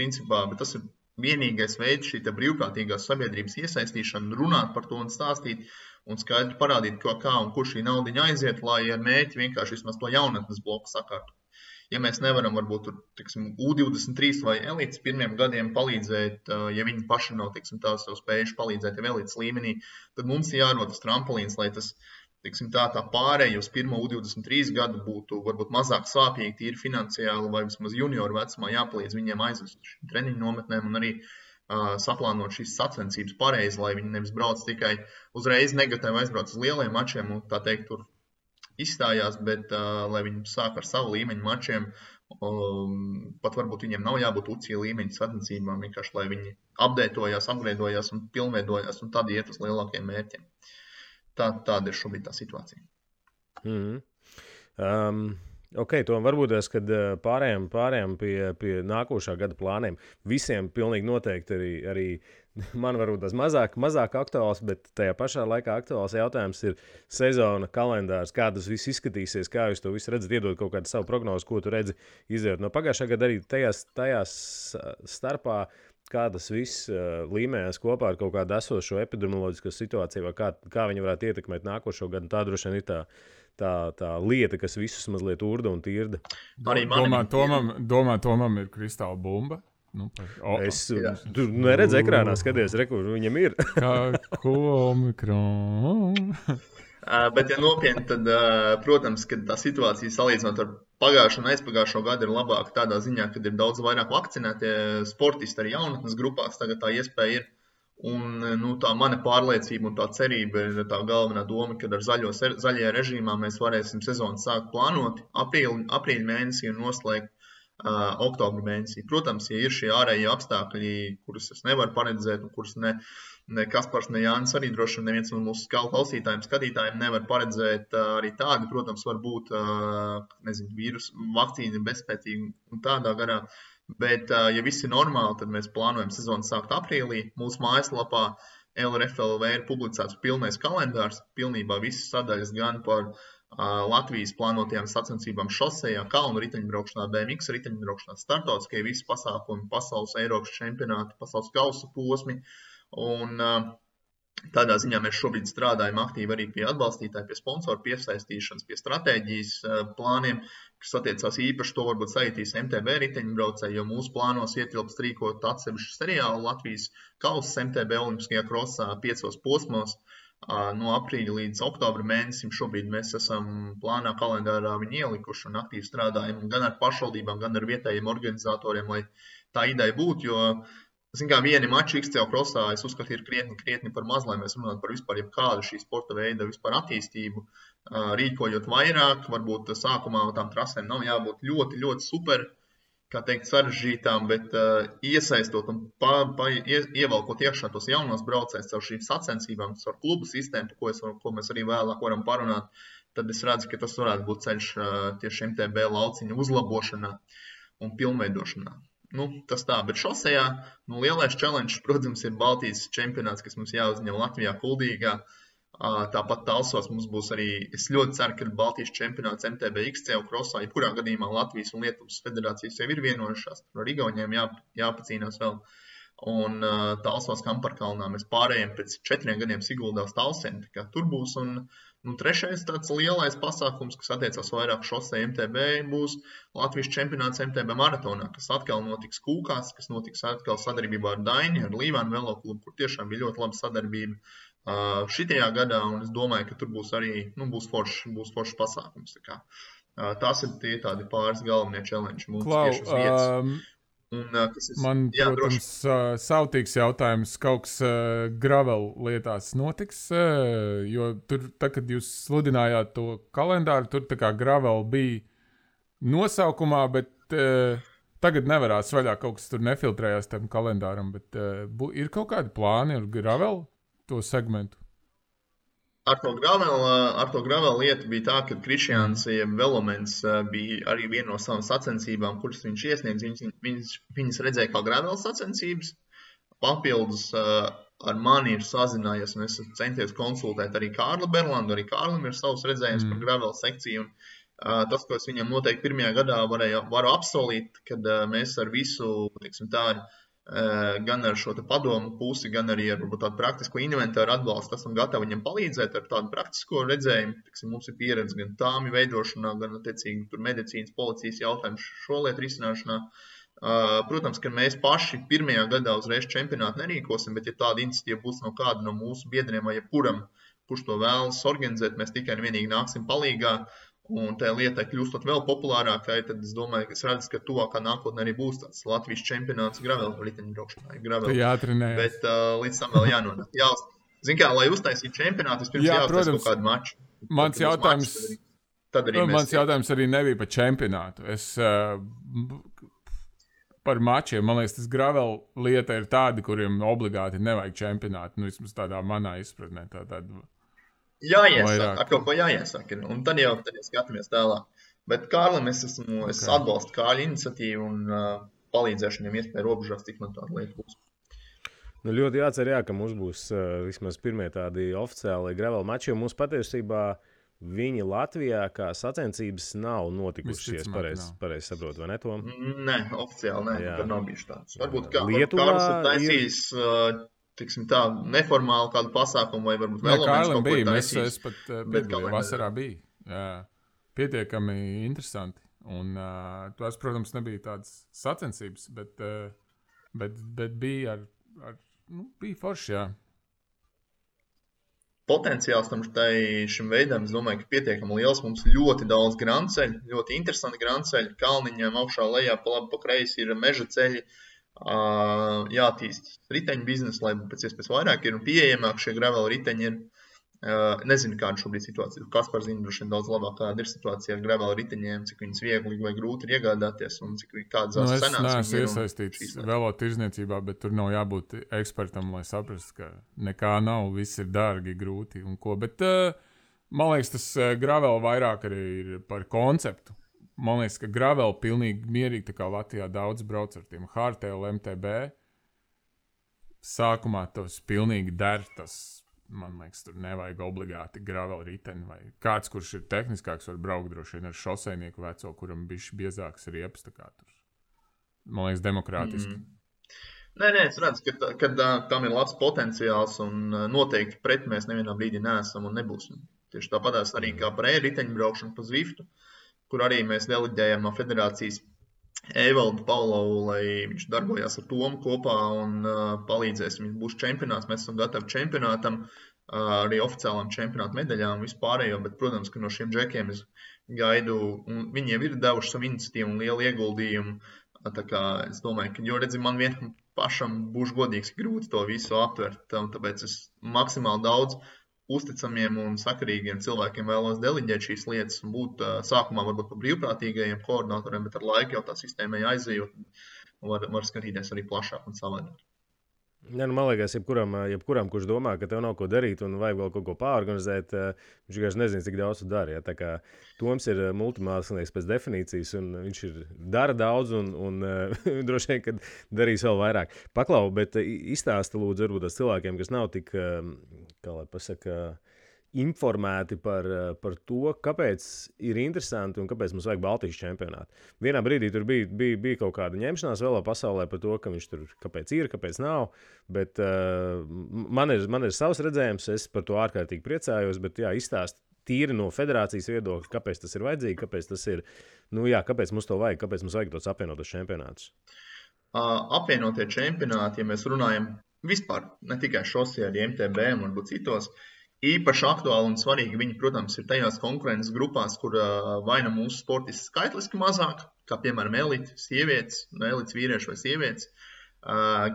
tas ir vienīgais veids šī brīvprātīgās sabiedrības iesaistīšana, runāt par to un stāstīt un skaidri parādīt, kā un kur šī naudiņa aiziet, lai ar mērķi vienkārši vismaz to jaunatnes bloku sakārtu. Ja mēs nevaram varbūt U23 vai elites pirmiem gadiem palīdzēt, ja viņi paši nav tās jau spējuši palīdzēt jau elites līmenī, tad mums ir jārod tas trampolīns, lai tas tā pārēja uz pirmo U23 gadu būtu varbūt mazāk sāpīgi, tīri finansiāli vai vismaz junioru vecumā jāpalīdz viņiem aizvest šīm treniņu nometnēm un arī saplānot šīs sacensības pareizi, lai viņi nevis brauc tikai uzreiz negatīvi aizbrauc uz lieliem mačiem un tā teikt tur izstājās, bet lai viņi sāk ar savu līmeņu mačiem, pat varbūt viņiem nav jābūt UCI līmeņa sacensībām, vienkārši lai viņi updateojās, upgradeojās un pilnveidojās un tad iet uz lielākiem mērķiem. Tāda ir šobrīd tā situācija. To varbūt es, kad pārējām pie nākošā gada plāniem. Visiem pilnīgi noteikti arī man varbūt tas mazāk aktuāls, bet tajā pašā laikā aktuāls jautājums ir sezona, kalendārs, kā tas viss izskatīsies, kā jūs to visu redzat, iedot kaut kādu savu prognozi, ko tu redzi izdarot. No pagājušā gada arī tajās starpā, kā tas viss līmējās kopā ar kaut kādu esošo epidemioloģisko situāciju, vai kā viņi varētu ietekmēt nākošo gadu. Tā droši vien ir tā lieta, kas visus mazliet urda un tirda. Tomam ir kristāla bumba. Tu neredzi ekrānā, skaties, kur viņam ir. Ko omikron? Bet, ja nopietni, tad, protams, ka tā situācija salīdzinot ar pagājušo un aizpagājušo gadu ir labāka tādā ziņā, kad ir daudz vairāk vakcinētie sportisti arī jaunatnes grupās. Tagad tā iespēja ir. Un tā mana pārliecība un tā cerība ir tā galvenā doma, ka ar zaļajā režīmā mēs varēsim sezonu sākt plānot aprīļa mēnesī un noslēgt oktobra mēnesī. Protams, ja ir šie ārējie apstākļi, kurus es nevaru paredzēt un kurus ne Kaspars, ne Jānis arī droši vien neviens no mūsu klausītājiem, skatītājiem nevar paredzēt arī tādi, protams, var būt, vīrusu vakcīna bezspēcīga un tādā garā. Bet, ja viss ir normāli, tad mēs plānojam sezonu sākt aprīlī. Mūsu mājaslapā LRFLV ir publicēts pilnais kalendārs, pilnībā visas sadaļas gan par Latvijas plānotajām sacensībām šosejā, kalnu riteņbraukšanā, BMX riteņbraukšanā, startautiskie visi pasākumi, pasaules Eiropas čempionāti, pasaules kausa posmi. Un tādā ziņā mēs šobrīd strādājam aktīvi arī pie atbalstītāju, pie sponsoru piesaistīšanas, pie stratēģijas plāniem, kas attiecās īpaši to varbūt saitīs MTB riteņbraucēji, jo mūsu plānos ietilpst rīkot atsevišķu seriālu Latvijas kausas MTB olimpiskajā krosā 5 posmos no aprīļa līdz oktobra mēnesim. Šobrīd mēs esam plānā kalendārā viņu ielikuši un aktīvi strādājam gan ar pašvaldībām, gan ar vietējiem organizatoriem, lai tā ideja būtu, jo vieni mači XCO krosā, es uzskatu, ir krietni par maz, lai mēs runātu par vispār jebkādu šī sporta veida vispār attīstību, rīkojot vairāk, varbūt sākumā tām trasēm nav jābūt ļoti, ļoti super, kā teikt, sarežģītām, bet iesaistot un ievalkot iekšā tos jaunos braucējus caur šīm sacensībām, caur klubu sistēmu, ko mēs arī vēlāk varam parunāt, tad es redzu, ka tas varētu būt ceļš tieši MTB lauciņa uzlabošanā un pilnveidošanā. Tas tā, bet šosejā lielais challenge, protams, ir Baltijas čempionāts, kas mums jāuzņem Latvijā Kuldīgā. Tāpat Talsos mums būs arī, es ļoti ceru, ka Baltijas čempionāts MTB XCO krosā, jebkurā gadījumā Latvijas un Lietuvas federācijas jau ir vienojušās, ar Igauniem jāpacīnās vēl. Un Talsos Kamparkalnā mēs pārējiem pēc 4 gadiem Siguldā uz Talsiem, tā kā tur būs. Un trešais tāds lielais pasākums, kas attiecās vairāk šosei MTB, būs Latvijas čempionāts MTB maratonā, kas atkal notiks Kūkās, kas notiks atkal sadarbībā ar Daini, ar Līvānu veloklubu, kur tiešām bija ļoti laba sadarbība šitajā gadā, un es domāju, ka tur būs arī būs foršs pasākums. Tās ir tie tādi pāris galvenie challenge mums tieši uz vietas. Man, protams, sautīgs jautājums, kaut kas gravel lietās notiks, jo tur, kad jūs sludinājāt to kalendāru, tur tā kā gravel bija nosaukumā, bet tagad nevarās vaļā, kaut kas tur nefiltrējās tam kalendāram, bet ir kaut kādi plāni ar gravel to segmentu? Ar to gravel lietu bija tā, ka Krišjāns Velomens bija arī viena no savām sacensībām, kuras viņš iesniedz. Viņas redzēja kā gravel sacensības. Papildus ar mani ir sazinājies, un es centies konsultēt arī Kārli Berlandu. Arī Kārlim ir savs redzējums par gravel sekciju. Un tas, ko es viņam noteikti pirmajā gadā varu apsolīt, kad mēs ar visu, gan ar šo padomu pusi, gan arī ar tādu praktisko inventāru atbalstu esam gatavi viņam palīdzēt ar tādu praktisko redzējumu. Mums ir pieredze gan tāmi veidošanā, gan attiecīgi tur medicīnas, policijas jautājumu šo lietu risināšanā. Protams, ka mēs paši pirmajā gadā uzreiz čempionātu nerīkosim, bet ja tāda iniciatīva būs no kāda no mūsu biedriem vai jebkuram, kurš to vēlas organizēt, mēs tikai un vienīgi nāksim palīgā. Un tā lietai kļūstot vēl populārākai, tad es domāju, ka es redzu, ka tuvākā nākotnē arī būs tāds Latvijas čempionāts gravel riteņbraukšanā. Jātrenējas. Bet līdz tam vēl jānonāk. Zin kā, lai uztaisītu čempionātu, vispirms jāuztais kaut kādu maču. Mans jautājums arī nebija par čempionātu. Es par mačiem, man liekas, tas gravel lieta ir tādi, kuriem obligāti nevajag čempionātu. Vismaz tādā manā izpratnē. Jāiesāk, ar kaut ko jāiesāk, un tad jau skatāmies tālāk. Bet Kārlim es atbalstu Kārļa iniciatīvu un palīdzēšu viņam iespēju robežās, cik man tāda lieta būs. Ļoti jācer, ka mums būs vismaz pirmie tādi oficiāli gravel mači, jo mums patiesībā viņi Latvijā kā sacensības nav notikušies, pareizi saprotu, vai ne, Tom? Nē, oficiāli nē, tad nav bijuši tāds. Varbūt Kārlis ir taisījis neformāli kādu pasākumu vai varbūt vēl Kārlim bija, es pat piedalīju, vasarā bija. Jā, pietiekami interesanti. Un tās, protams, nebija tādas sacensības, bet bija bija forši, jā. Potenciāls šim veidam, es domāju, ka pietiekami liels. Mums ļoti daudz grandceļu, ļoti interesanti grandceļi. Kalniņām augšā lejā pa labi pa kreisi ir meža ceļi. jātīst riteņu biznesu, lai pēc iespējas vairāk ir un pieejamāk šie gravel riteņi ir. Nezinu, kāda šobrīd situācija. Kaspars zina droši vien daudz labāk, kāda ir situācija ar gravel riteņiem, cik viņas viegli vai grūti ir iegādāties un cik kādas cenas viņas ir. Es neesmu iesaistīts velo tirzniecībā, bet tur nav jābūt ekspertam, lai saprastu, ka nekā nav, viss ir dārgi, grūti un ko. Bet man liekas, tas gravel vairāk arī ir par konceptu. Man liekas, ka gravel pilnīgi mierīgi, tā kā Latvijā daudz brauc ar tiem hardtail MTB. Sākumā tas pilnīgi der, tas man liekas, tur nevajag obligāti gravel riteni vai kāds, kurš ir tehniskāks, var braukt droši vien ar šoseinieku veco, kuram bišķi biezāks riepas, tā kā tur. Man liekas, demokrātiski. Nē, es redzu, ka tam ir labs potenciāls un noteikti pret mēs nevienā brīdī neesam un nebūsim. Tieši tāpatās arī kā par e-riteņu braukšanu pa Zwiftu, kur arī mēs deleģējam no federācijas Evaldu Paulovu, lai viņš darbojās ar Tomu kopā un palīdzēs. Viņš būs čempionāts, mēs esam gatavi čempionātam, arī oficiālām čempionāta medaļām vispārējo, bet, protams, ka no šiem džekiem es gaidu, un viņi jau ir devuši savu iniciatīvu un lielu ieguldījumu. Tā kā es domāju, ka, jo redzi, man vienam pašam būs godīgs grūti to visu aptvert, tāpēc es maksimāli daudz uzticamiem un sakarīgiem cilvēkiem vēlos deleģēt šīs lietas un būt sākumā varbūt par brīvprātīgajiem koordinatoriem, bet ar laiku jau tā sistēmai aizejot un var skatīties arī plašāk un savādāk. Ja, man liekas, jebkuram, kurš domā, ka tev nav ko darīt un vajag vēl kaut ko pārorganizēt, viņš vienkārši nezina, cik daudz tu dari. Ja? Tā kā Toms ir multimākslinieks pēc definīcijas, un viņš dara daudz un droši vien, ka darīs vēl vairāk. Paklau, bet izstāsti lūdzu varbūt tās cilvēkiem, kas nav tik, kā lai pasaka, informēti par to, kāpēc ir interesanti un kāpēc mums vajag Baltijas čempionātu. Vienā brīdī tur bija kaut kāda ņemšanās vēl pasaulē par to, ka viņš tur kāpēc ir, kāpēc nav, bet man ir savs redzējums, es par to ārkārtīgi priecājos, bet jā, izstāst tīri no federācijas viedokļa, kāpēc tas ir vajadzīgi, kāpēc tas ir, kāpēc mums to vajag, kāpēc mums vajag tos apvienotos čempionātus. Apvienotie čempionāti, ja mēs runājam vispār, ne tikai šosē, arī MTB un varbūt citos, īpaši aktuāli un svarīgi viņi, protams, ir tajās konkurences grupās, kur vai nu mūsu sportisti skaitliski mazāk, kā piemēram elites sievietes, elites vīrieši vai sievietes,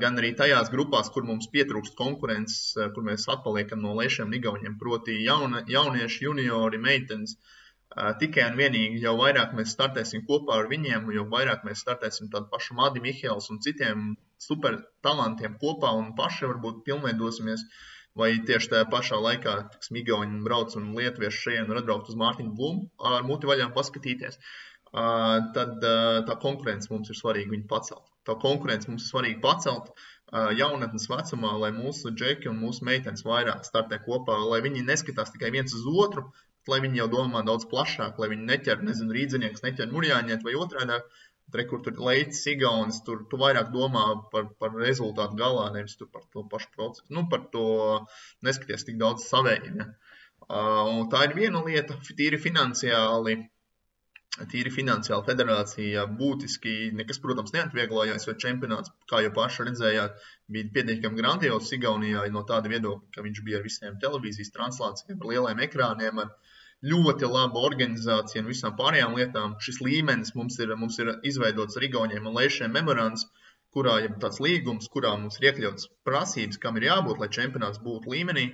gan arī tajās grupās, kur mums pietrūkst konkurences, kur mēs atpaliekam no lešiem igauņiem, proti jaunieši, juniori, meitenes. Tikai un vienīgi, jau vairāk mēs startēsim kopā ar viņiem, jo vairāk mēs startēsim tādu pašu Madi Mihēls un citiem super talantiem kopā un paši varbūt pilnveidosimies. Vai tieši tajā pašā laikā Igauni brauc un lietuvieši šeit un atbraukt uz Mārtiņu Blumu ar muti vaļām paskatīties, tad tā konkurence mums ir svarīgi viņu pacelt. Tā konkurence mums ir svarīgi pacelt jaunatnes vecumā, lai mūsu džeki un mūsu meitenes vairāk startē kopā, lai viņi neskatās tikai viens uz otru, lai viņi jau domā daudz plašāk, lai viņi neķer, rīdzinieks, neķer murjāņiet vai otrādāk. Kur tur leicis Igaunis, tur tu vairāk domā par rezultātu galā, nevis tu par to pašu procesu. Par to neskaties tik daudz savēji. Ja? Un tā ir viena lieta, tīri finansiāli federācija būtiski nekas, protams, neatvieglojās, jo čempionāts, kā jau paši redzējāt, bija pietiekami grandios Igaunijā no tāda viedokļa, ka viņš bija ar visiem televīzijas translācijiem, ar lieliem ekrāniem, ar ļoti laba organizācija un visām pārējām lietām. Šis līmenis mums ir izveidots ar Igauņiem un Leišiem memorands, kurā ir tāds līgums, kurā mums ir iekļauts prasības, kam ir jābūt, lai čempionāts būtu līmenī.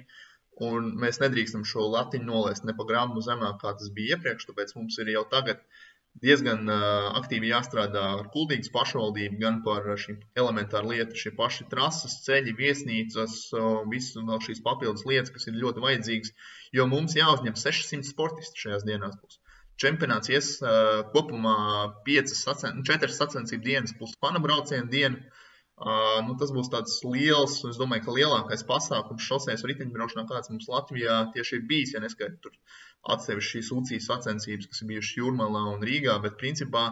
Un mēs nedrīkstam šo latiņu nolaist ne pa gramu zemāk, kā tas bija iepriekš, tāpēc mums ir jau tagad diezgan aktīvi jāstrādā ar Kuldīgas pašvaldību, gan par šīm elementāru lietu, šie paši trases, ceļi, viesnīcas, visu vēl šīs papildus lietas, kas ir ļoti vajadzīgas, jo mums jāuzņem 600 sportisti šajās dienās būs. Čempionāts ies kopumā 4 sacensību dienas plus panabraucienu dienu. Tas būs tāds liels, es domāju, ka lielākais pasākums šosejas riteņbraukšanā, kāds mums Latvijā tieši ir bijis, ja neskaidri tur atsevišķi šīs UCI sacensības, kas ir bijušas Jūrmalā un Rīgā, bet principā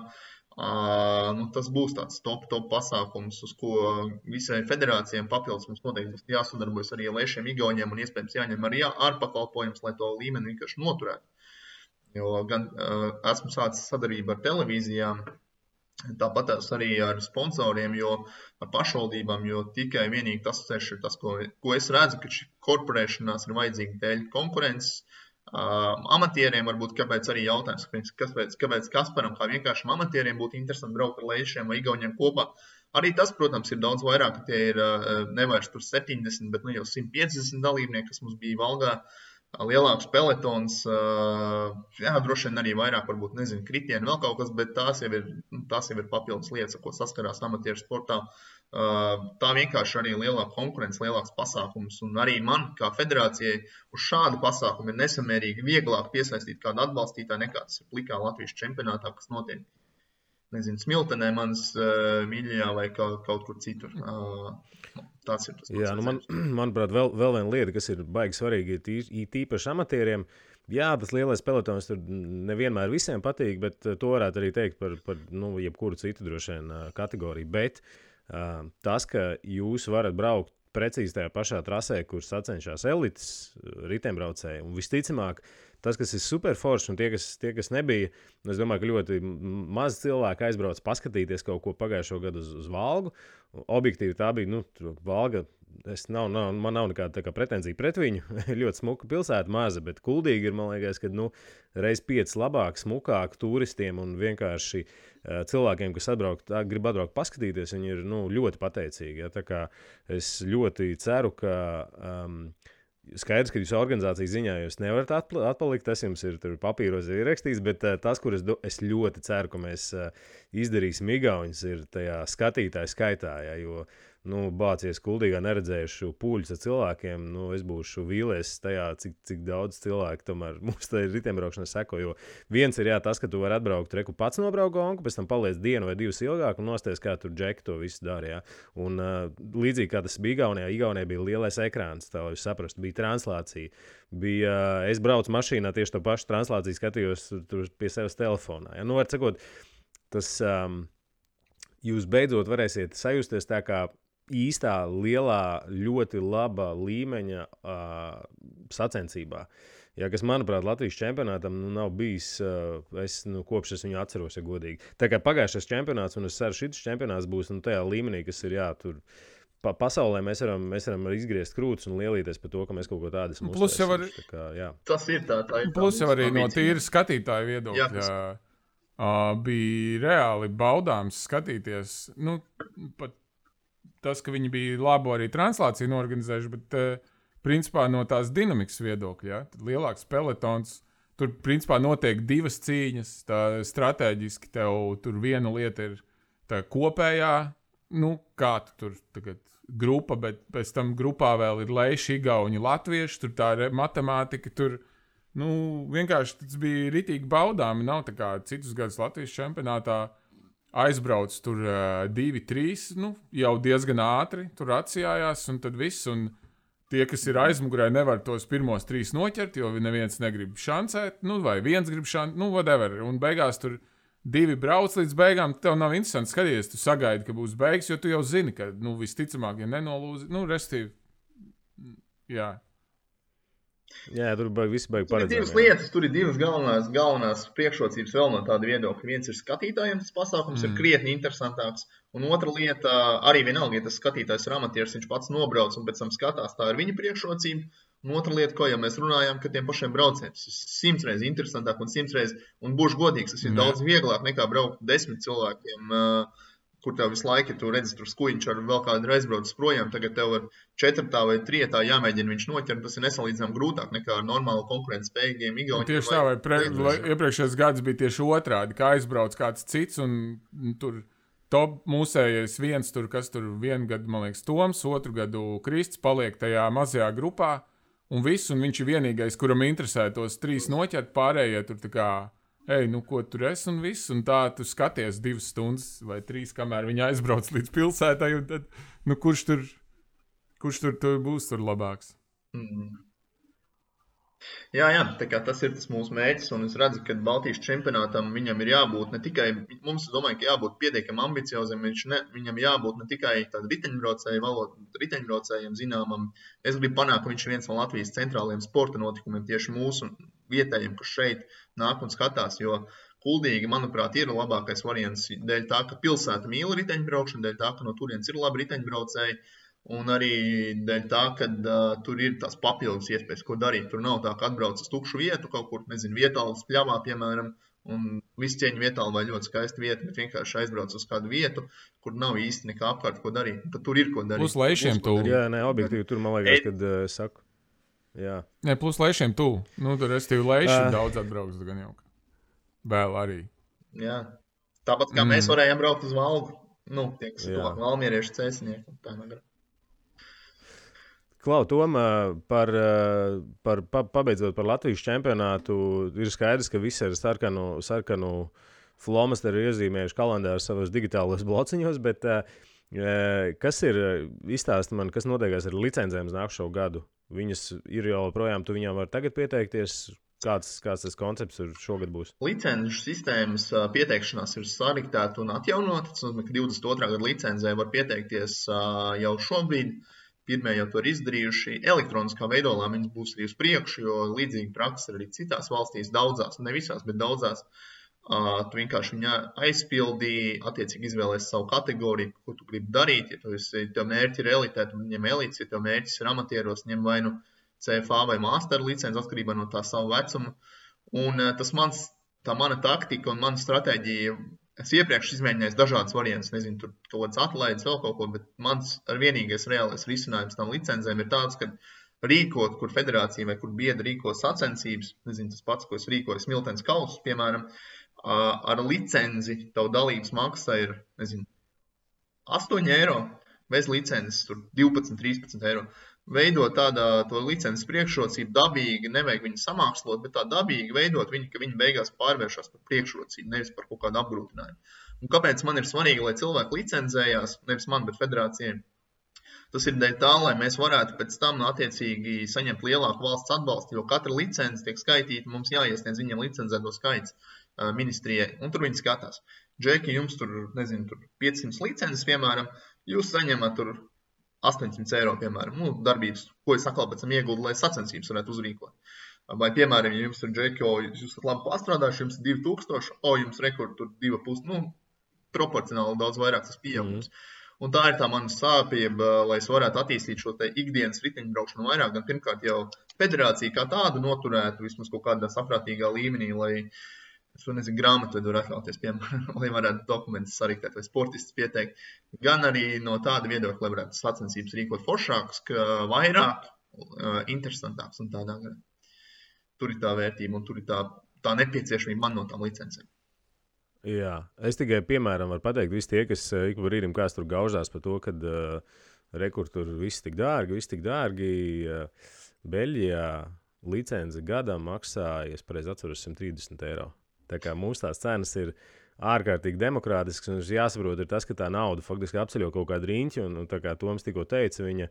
tas būs tāds top pasākums, uz ko visai federācijām papildus mums noteikti būs jāsadarbojas arī ar Leišiem Igauņiem un iespējams jāņem arī ārpakalpojums, lai to līmeni vienkārši noturētu. Jo gan esmu sācis sadarbību ar televīzijām, tāpat arī ar sponsoriem, jo ar pašvaldībām, jo tikai vienīgi tas ceļš ir tas, ko es redzu, ka šī korporēšanās ir vajadzīga dēļ konkurences, Amatieriem varbūt, kāpēc arī jautājums, kāpēc Kasparam, kā vienkāršam amatieriem būtu interesanti braukt ar leišiem vai igauniem kopā. Arī tas, protams, ir daudz vairāk, ka tie ir nevairs tur 70, bet jau 150 dalībnieki, kas mums bija Valgā, lielāks peletons, droši vien arī vairāk, varbūt, nezinu, kritieni, vēl kaut kas, bet tās jau ir papildus lietas, ko saskarās amatieru sportā. Tā vienkārši arī lielāka konkurence, lielāks pasākums, un arī man, kā federācijai, uz šādu pasākumu ir nesamērīgi vieglāk piesaistīt kādu atbalstītāju nekā tas ir plikā Latvijas čempionātā, kas notiek, nezinu, Smiltenē, manas mīļajā vai kaut kur citur. Tas ir tas. Jā, manuprāt, vēl viena lieta, kas ir baigi svarīga, ir tīpaši amatieriem. Jā, tas lielais pelotons tur nevienmēr visiem patīk, bet to varētu arī teikt par jebkuru citu droši vien kategoriju, bet tas, ka jūs varat braukt precīzi tajā pašā trasē, kur sacenšās elites riteņbraucēji, un visticamāk, tas, kas ir super forši, un tie, kas nebija, es domāju, ka ļoti maz cilvēku aizbrauc paskatīties kaut ko pagājušo gadu uz Valgu. Objektīvi tā bija, Valga, man nav nekāda pretenzija pret viņu, ļoti smuka pilsēta, maza, bet Kuldīgi ir, man liekas, ka reiz 5 labāk, smukāk turistiem un vienkārši cilvēkiem, kas grib atbraukt paskatīties, viņi ir ļoti pateicīgi. Ja? Tā kā es ļoti ceru, ka skaidrs, ka jūsu organizācijas ziņā jūs nevarat atpalikt, tas jums ir papīros ierakstīts, bet tas, kur es ļoti ceru, ka mēs izdarīsim igauņus, ir tajā skatītāju skaitā, ja, jo bācies Kuldīgā neredzējuši pūļus ar cilvēkiem, es būšu vīlies tajā, cik daudz cilvēku tomēr mums tā ir riteņbraukšana seko, jo viens ir tas, ka tu vari atbraukt, reku pats nobraukt gonku, pēc tam paliec dienu vai 2 ilgāk un nosties, kā tur Džeki to visu dara, ja. Un līdzīgi kā tas bija Igaunijā bija lielais ekrāns, tā lai jūs saprastu, bija translācija, es braucu mašīnā tieši to pašu translāciju skatījos tur pie sevis telefonā, ja. Var sakot, tas jūs beidzot varēsiet sajusties tā kā īstā, lielā, ļoti laba līmeņa sacensībā. Ja, kas, manuprāt, Latvijas čempionātam nav bijis, kopš es viņu atceros, ja godīgi. Tā kā pagājušais čempionāts, un es ceru, šis čempionāts būs tajā līmenī, kas ir, tur pasaulē mēs varam izgriezt krūtis un lielīties par to, ka mēs kaut ko tādu esam uztaisījuši. Tas ir tā ir. Plus jau arī no tīra skatītāju viedokļa bija reāli baudāms skatīties, pat tas, ka viņi bija labu arī translāciju norganizējuši, bet principā no tās dinamikas viedokļa, ja? Tad lielāks pelotons, tur principā notiek 2 cīņas, tā stratēģiski tev tur viena lieta ir tā kopējā, kā tu tur tagad grupa, bet pēc tam grupā vēl ir leiši, igauņi, latvieši, tur tā matemātika, tur, vienkārši tas bija ritīgi baudāmi, nav tā kā citus gadus Latvijas čempionātā, aizbrauc tur 2-3, jau diezgan ātri, tur atsijājās, un tad viss, un tie, kas ir aizmugurē, nevar tos pirmos 3 noķert, jo neviens negrib šancēt, vai viens grib šancēt, whatever, un beigās tur 2 brauc līdz beigām, tev nav interesanti skatīties, tu sagaidi, ka būs beigas, jo tu jau zini, ka, visticamāk, ja nenolūzi, restīvi, jā. Jā, tur viss baigi paredzēt. Tur ir 2 lietas, tur ir 2 galvenās priekšrocības vēl no tāda viedokļa. Viens ir skatītājiem, tas pasākums ir krietni interesantāks, un otra lieta, arī vienalga, ja tas skatītājs ir amatieris, viņš pats nobrauc un pēc tam skatās, tā ir viņa priekšrocība. Un otra lieta, ko jau mēs runājām, ka tiem pašiem braucējiem tas ir 100 reizes interesantāk un 100 reizes, un būšu godīgs, tas ir daudz vieglāk nekā braukt 10 cilvēkiem, kur tev visu laiku, tu redzi, tur skuiņš ar vēl kādu aizbraucis projām, tagad tev ar 4. vai 3. jāmēģina viņš noķert, tas ir nesalīdzinām grūtāk nekā ar normālu konkurences spējīgiem igauņiem. Tieši tā, vai iepriekšējais gads bija tieši otrādi, kā aizbrauc kāds cits, un tur top mūsējais viens, tur, kas tur 1 gadu, man liekas, Toms, 2 gadu Krists paliek tajā mazajā grupā, un viss, un viņš ir vienīgais, kuram interesē tos 3 noķert, pārējie tur tā kā ko tur esi un viss, un tā tu skaties 2 stundas vai 3, kamēr viņi aizbrauc līdz pilsētai, un tad, kurš tur būs tur labāks? Jā, tā kā tas ir tas mūsu mērķis, un es redzu, ka Baltijas čempionātam viņam ir jābūt ne tikai, mums domāju, ka jābūt pietiekam ambiciozam, viņam jābūt ne tikai tādu riteņbraucējiem zināmam. Es gribu panākt, ka viņš ir viens no Latvijas centrālajiem sporta notikumiem, tieši mūsu vietējiem, kas šeit nāk un skatās, jo Kuldīgi, manuprāt, ir labākais variants dēļ tā, ka pilsēta mīl riteņbraukšanu, dēļ tā, ka no turienes ir labi riteņbraucēji. Un arī dēļ tā, ka tur ir tās papildus iespējas, ko darīt. Tur nav tā, ka atbrauc uz tukšu vietu kaut kur, nezinu, vietālas pļavā, piemēram, un viss cieņu vietāli vai ļoti skaista vieta, bet vienkārši aizbrauc uz kādu vietu, kur nav īsti nekā apkārt, ko darīt. Tad tur ir ko darīt. Plus lejšiem tuvu. Jā, nē, objektīvi tur man liekas, kad saku. Jā. Nē, plus lejšiem tuvu. Nu, tur restīvi lejšiem daudz atbrauks, gan jau. Vēl arī. Jā. Tāpat kā mēs varējām braukt uz Valgu. Nu, tie, kas tuvāk valmieriešu cēsinieki. Tā nevar. Klau, Tom, pabeidzot par Latvijas čempionātu, ir skaidrs, ka visi ar sarkanu flomasteri ir iezīmējuši kalendāru savos digitālos blociņos, bet kas ir, izstāsti man, kas notiekās ar licencēm uz nākušo gadu? Viņas ir jau projām, tu viņām var tagad pieteikties? Kāds tas koncepts šogad būs? Licenču sistēmas pieteikšanās ir sariktēta un atjaunota. Tas nozīmē, ka 22. gada licencē var pieteikties jau šobrīd. Pirmie jau to ir izdarījuši. Elektroniskā veidolā viņas būs arī uz priekšu, jo līdzīga praksa ir arī citās valstīs, daudzās, ne visās, bet daudzās. Tu vienkārši viņu aizpildīji, attiecīgi izvēlēsi savu kategoriju, ko tu gribi darīt. Ja tev mērķi ir elitē, tu ņem elites, ja tev mērķis ir amatieros, ņem vai nu CFA vai master licenci atkarībā no tā savu vecumu. Un tā mana taktika un mana stratēģija, es iepriekš izmēģināju dažādas variantus, nezinu, tur kaut kāds atlaides vēl kaut ko, bet mans vienīgais reālais risinājums tam licencēm ir tāds, ka rīkot, kur federācija vai kur biedri rīko sacensības, nezinu, tas pats, ko es rīkoju Smiltenes kausus, piemēram, ar licenci tavu dalības maksa ir, nezinu, 8 eiro, bez licences tur 12-13 eiro. Veidot to licences priekšrocību dabīgi, nevajag viņu samākslot, bet tā dabīgi veidot viņu, ka viņi beigās pārvēršas par priekšrocību, nevis par kaut kādu apgrūtinājumu. Un kāpēc man ir svarīgi, lai cilvēki licencējās, nevis man, bet federācijai? Tas ir dēļ tā, lai mēs varētu pēc tam attiecīgi saņemt lielāku valsts atbalstu, jo katra licence tiek skaitīta, mums jāiesniedz viņiem licencēto skaits ministrijai, un tur viņi skatās. Džeki, jums tur, nezinu, tur 500 licences, piemēram, jūs saņemat tur 800 eiro, piemēram, darbības, ko es atkal pēc tam ieguldu, lai sacensības varētu uzrīkot. Vai, piemēram, ja jums ir džeki, jūs esat labi pastrādājuši, jums ir 2000, jums rekord tur 2,5, proporcionāli daudz vairāk tas pieaugums. Un tā ir tā mana sāpība, lai es varētu attīstīt šo te ikdienas riteņbraukšanu vairāk, gan pirmkārt jau federācija kā tādu noturētu vismaz kaut kādā saprātīgā līmenī, lai es nezinu, grāmatvedu var atļauties, piemēram, lai varētu dokumentus sariktēt vai sportistus pieteikt. Gan arī no tāda viedokļa, lai varētu sacensības rīkot foršākas, ka vairāk, interesantāks un tādā garā. Tur ir tā vērtība un tur ir tā nepieciešamība man no tām licencēm. Jā, es tikai, piemēram, varu pateikt, visi tie, kas ik pa brīdim kāds tur gaužās par to, kad rekur tur viss tik dārgi, Beļģijā licence gadam maksā, ja es pareizi atceros, 130 eiro. Tā kā mums tās cenas ir ārkārtīgi demokrātisks, un jāsaprot ir tas, ka tā nauda faktiski apceļo kaut kādu riņķi, un tā kā Toms tikko teica, viņa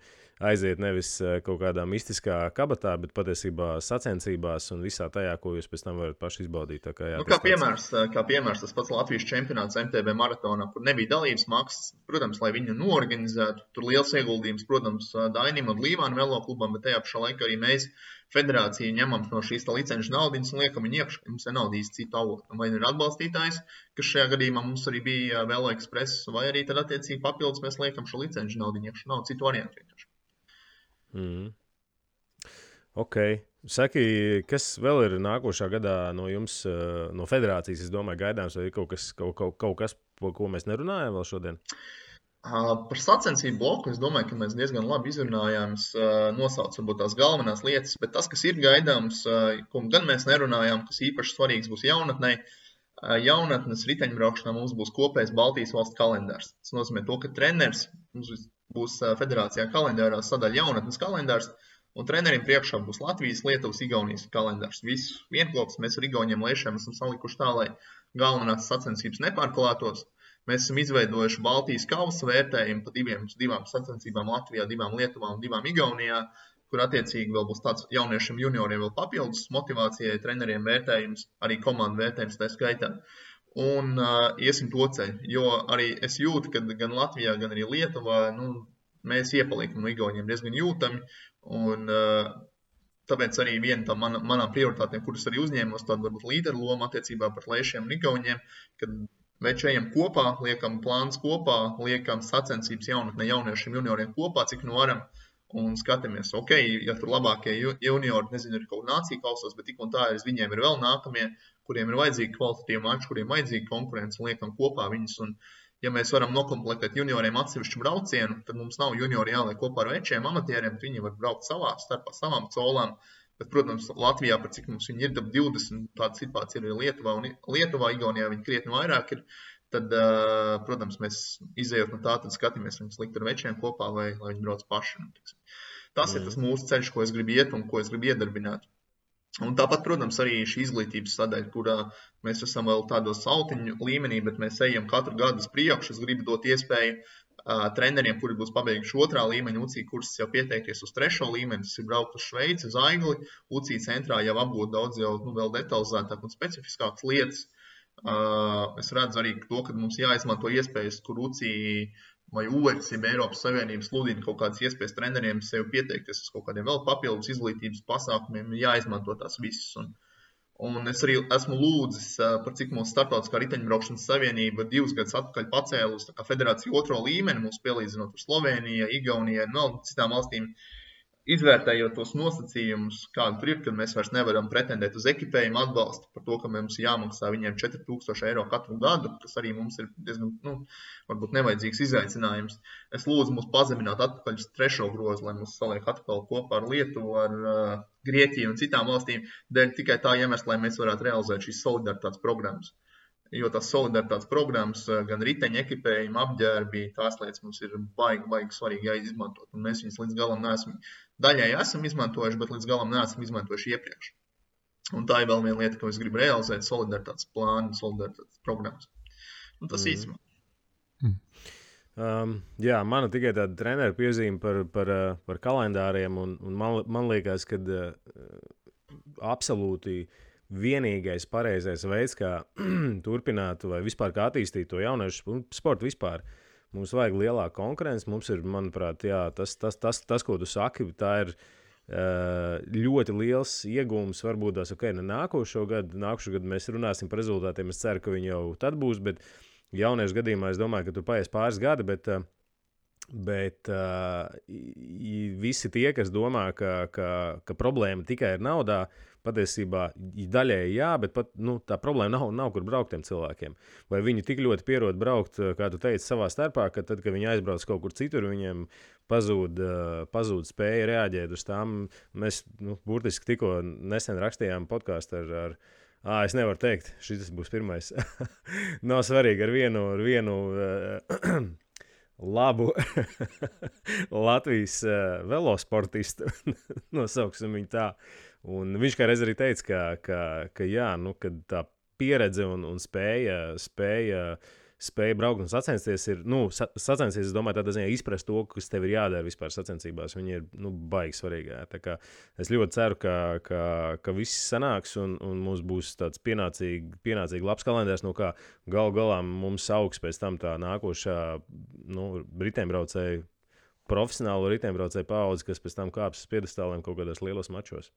aiziet nevis kaut kādā mistiskā kabatā, bet patiesībā sacensībās un visā tajā, ko jūs pēc tam varat paši izbaudīt. Tā kā, jā, kā piemērs tas pats Latvijas čempionāts MTB maratonā, kur nebija dalības maksas, protams, lai viņu noorganizētu, tur liels ieguldījums, protams, Dainim un Līvānu velo klubam, bet tajā pašā laikā arī mēs federāciju ņemam no šīs licenču naudiņas un liekam viņu iekšā, mums ir nauda īsti citu avotu. Vai ir atbalstītājs, kas šajā gadījumā mums arī bija Velo Express, vai arī tad attiecīgi papildus mēs liekam šo licenču naudiņu iekšā. Nav citu variantu vienkārši. Ok. Saki, kas vēl ir nākošā gadā no jums, no federācijas, es domāju, gaidāms, vai ir kaut kas, ko mēs nerunājam vēl šodien? Par sacensību bloku es domāju, ka mēs diezgan labi izrunājām, nosauc varbūt tās galvenās lietas, bet tas, kas ir gaidāms, ko gan mēs nerunājām, kas īpaši svarīgs būs jaunatnei, jaunatnes riteņbraukšanā mums būs kopējs Baltijas valsts kalendārs. Tas nozīmē to, ka treneris, mums būs federācijā kalendārā sadaļa jaunatnes kalendārs, un treneriem priekšā būs Latvijas, Lietuvas, Igaunijas kalendārs. Visu vienklops mēs ar Igauniem lēšiem esam salikuši tā, lai galvenās sacensības nepārklātos. Mēs esam izveidojuši Baltijas kausa vērtējumu pa divām sacensībām Latvijā, 2 Lietuvā un 2 Igaunijā, kur attiecīgi vēl būs tāds jauniešiem junioriem vēl papildus motivācijai, treneriem vērtējums, arī komandu vērtējums tā skaitā. Un iesim to ceļu, jo arī es jūtu, ka gan Latvijā, gan arī Lietuvā, mēs iepaliekam no Igauniem diezgan jūtami, un tāpēc arī viena no manām prioritātēm, kuras arī uzņēmos, tāda varbūt līderu loma attiecībā par lēšiem un Igauniem, kad veči ejam kopā, liekam plāns kopā, liekam sacensības jaunatnē jauniešiem junioriem kopā, cik nu varam. Un skatāmies, ok, ja tur labākie juniori, nezinu, ir kaut nācija kausos, bet tik un tā viņiem ir vēl nākamie, kuriem ir vajadzīgi kvalitatīvi mači, kuriem vajadzīgi konkurence, un liekam kopā viņus. Un, ja mēs varam nokomplektēt junioriem atsevišķu braucienu, tad mums nav juniori jāliek kopā ar večiem amatieriem, tad viņi var braukt starpā savām colām. Bet, protams, Latvijā, par cik mums viņi ir 20, tāda situācija ir Lietuvā, un Lietuvā, Igaunijā viņi krietni vairāk ir. Tad, protams, mēs izējot no tā, tad skatāmies viņus likt ar večiem kopā, lai viņi brauc paši. Tas ir tas mūsu ceļš, ko es gribu iet un ko es gribu iedarbināt. Un tāpat, protams, arī šī izglītības sadaļa, kurā mēs esam vēl tādos autiņu līmenī, bet mēs ejam katru gadu uz priekšu. Es gribu dot iespēju treneriem, kuri būs pabeiguši 2. līmeņa UCI kursus, jau pieteikties uz 3. līmeni. Tas ir braukt uz Šveici, uz Aigli. UCI centrā jau apgūt daudz jau vēl detalizētāk un specifiskākas lietas. Es redzu arī to, ka mums jāizmanto iespējas, kur UCI vai UERS, ja Eiropas Savienības sludina kaut kādas iespējas treneriem sev pieteikties uz kaut kādiem vēl papildus izglītības pasākumiem, jāizmanto tās visas. Un es arī esmu lūdzis, par cik mūsu starptautiskā riteņbraukšanas savienība 2 gadus atpakaļ pacēlus federāciju 2. līmeni, mums pielīdzinot ar Sloveniju, Igauniju un vēl citām valstīm. Izvērtējot tos nosacījumus, kādi tur ir, kad mēs vairs nevaram pretendēt uz ekipējumu atbalstu par to, ka mums jāmaksā viņiem 4000 eiro katru gadu, kas arī mums ir diezgan, varbūt nevajadzīgs izaicinājums. Es lūdzu mūs pazemināt atpakaļ uz 3. grozu, lai mūs saliek atkal kopā ar Lietuvu, ar Grieķiju un citām valstīm, dēļ tikai tā iemesla, lai mēs varētu realizēt šīs solidaritātes programmas. Jo tās solidaritātes programmas, gan riteņa ekipējuma, apģērbi, tās lietas mums ir baigi svarīgi jāizmantot. Un mēs viņas līdz galam daļai esam izmantojuši, bet līdz galam neesam izmantojuši iepriekš. Un tā ir vēl viena lieta, ko es gribu realizēt, solidaritātes plānu, solidaritātes programmas. Un tas īsumā. Jā, mana tikai tāda trenera piezīme par kalendāriem, un man liekas, ka absolūti vienīgais pareizais veids, kā turpināt vai vispār kā attīstīt to jauniešu sportu vispār. Mums vajag lielāku konkurenci, mums ir, manuprāt, jā, tas, ko tu saki, tā ir ļoti liels iegūms, varbūt tās, nākošo gadu mēs runāsim par rezultātiem, es ceru, ka viņi jau tad būs, bet jauniešu gadījumā es domāju, ka tur paies pāris gadi, bet visi tie, kas domā, ka problēma tikai ir naudā, patiesībā daļēji jā, bet pat, tā problēma nav kur braukt tiem cilvēkiem. Vai viņi tik ļoti pierod braukt, kā tu teici, savā starpā, ka tad, kad viņi aizbrauc kaut kur citur, viņiem pazūd spēja reaģēt uz tām. Mēs burtiski tikko nesen rakstījām podcastu ar es nevaru teikt, šis būs pirmais. Nav svarīgi ar vienu labu Latvijas velosportistu, nosauksim viņu tā. Un viņš kā reiz arī teica, ka jā, kad tā pieredze un spēja braukt un sacensties ir, sacensties, es domāju, tādā ziņā izprast to, kas tev ir jādara vispār sacensībās. Viņi ir, baigi svarīgi. Tā kā es ļoti ceru, ka viss sanāks un mums būs tāds pienācīgi labs kalendārs, kā galā mums augs pēc tam tā nākošā, riteņbraucēju, profesionālo riteņbraucēju paudzi, kas pēc tam kāps uz piedestāliem kaut kādos lielos mačos.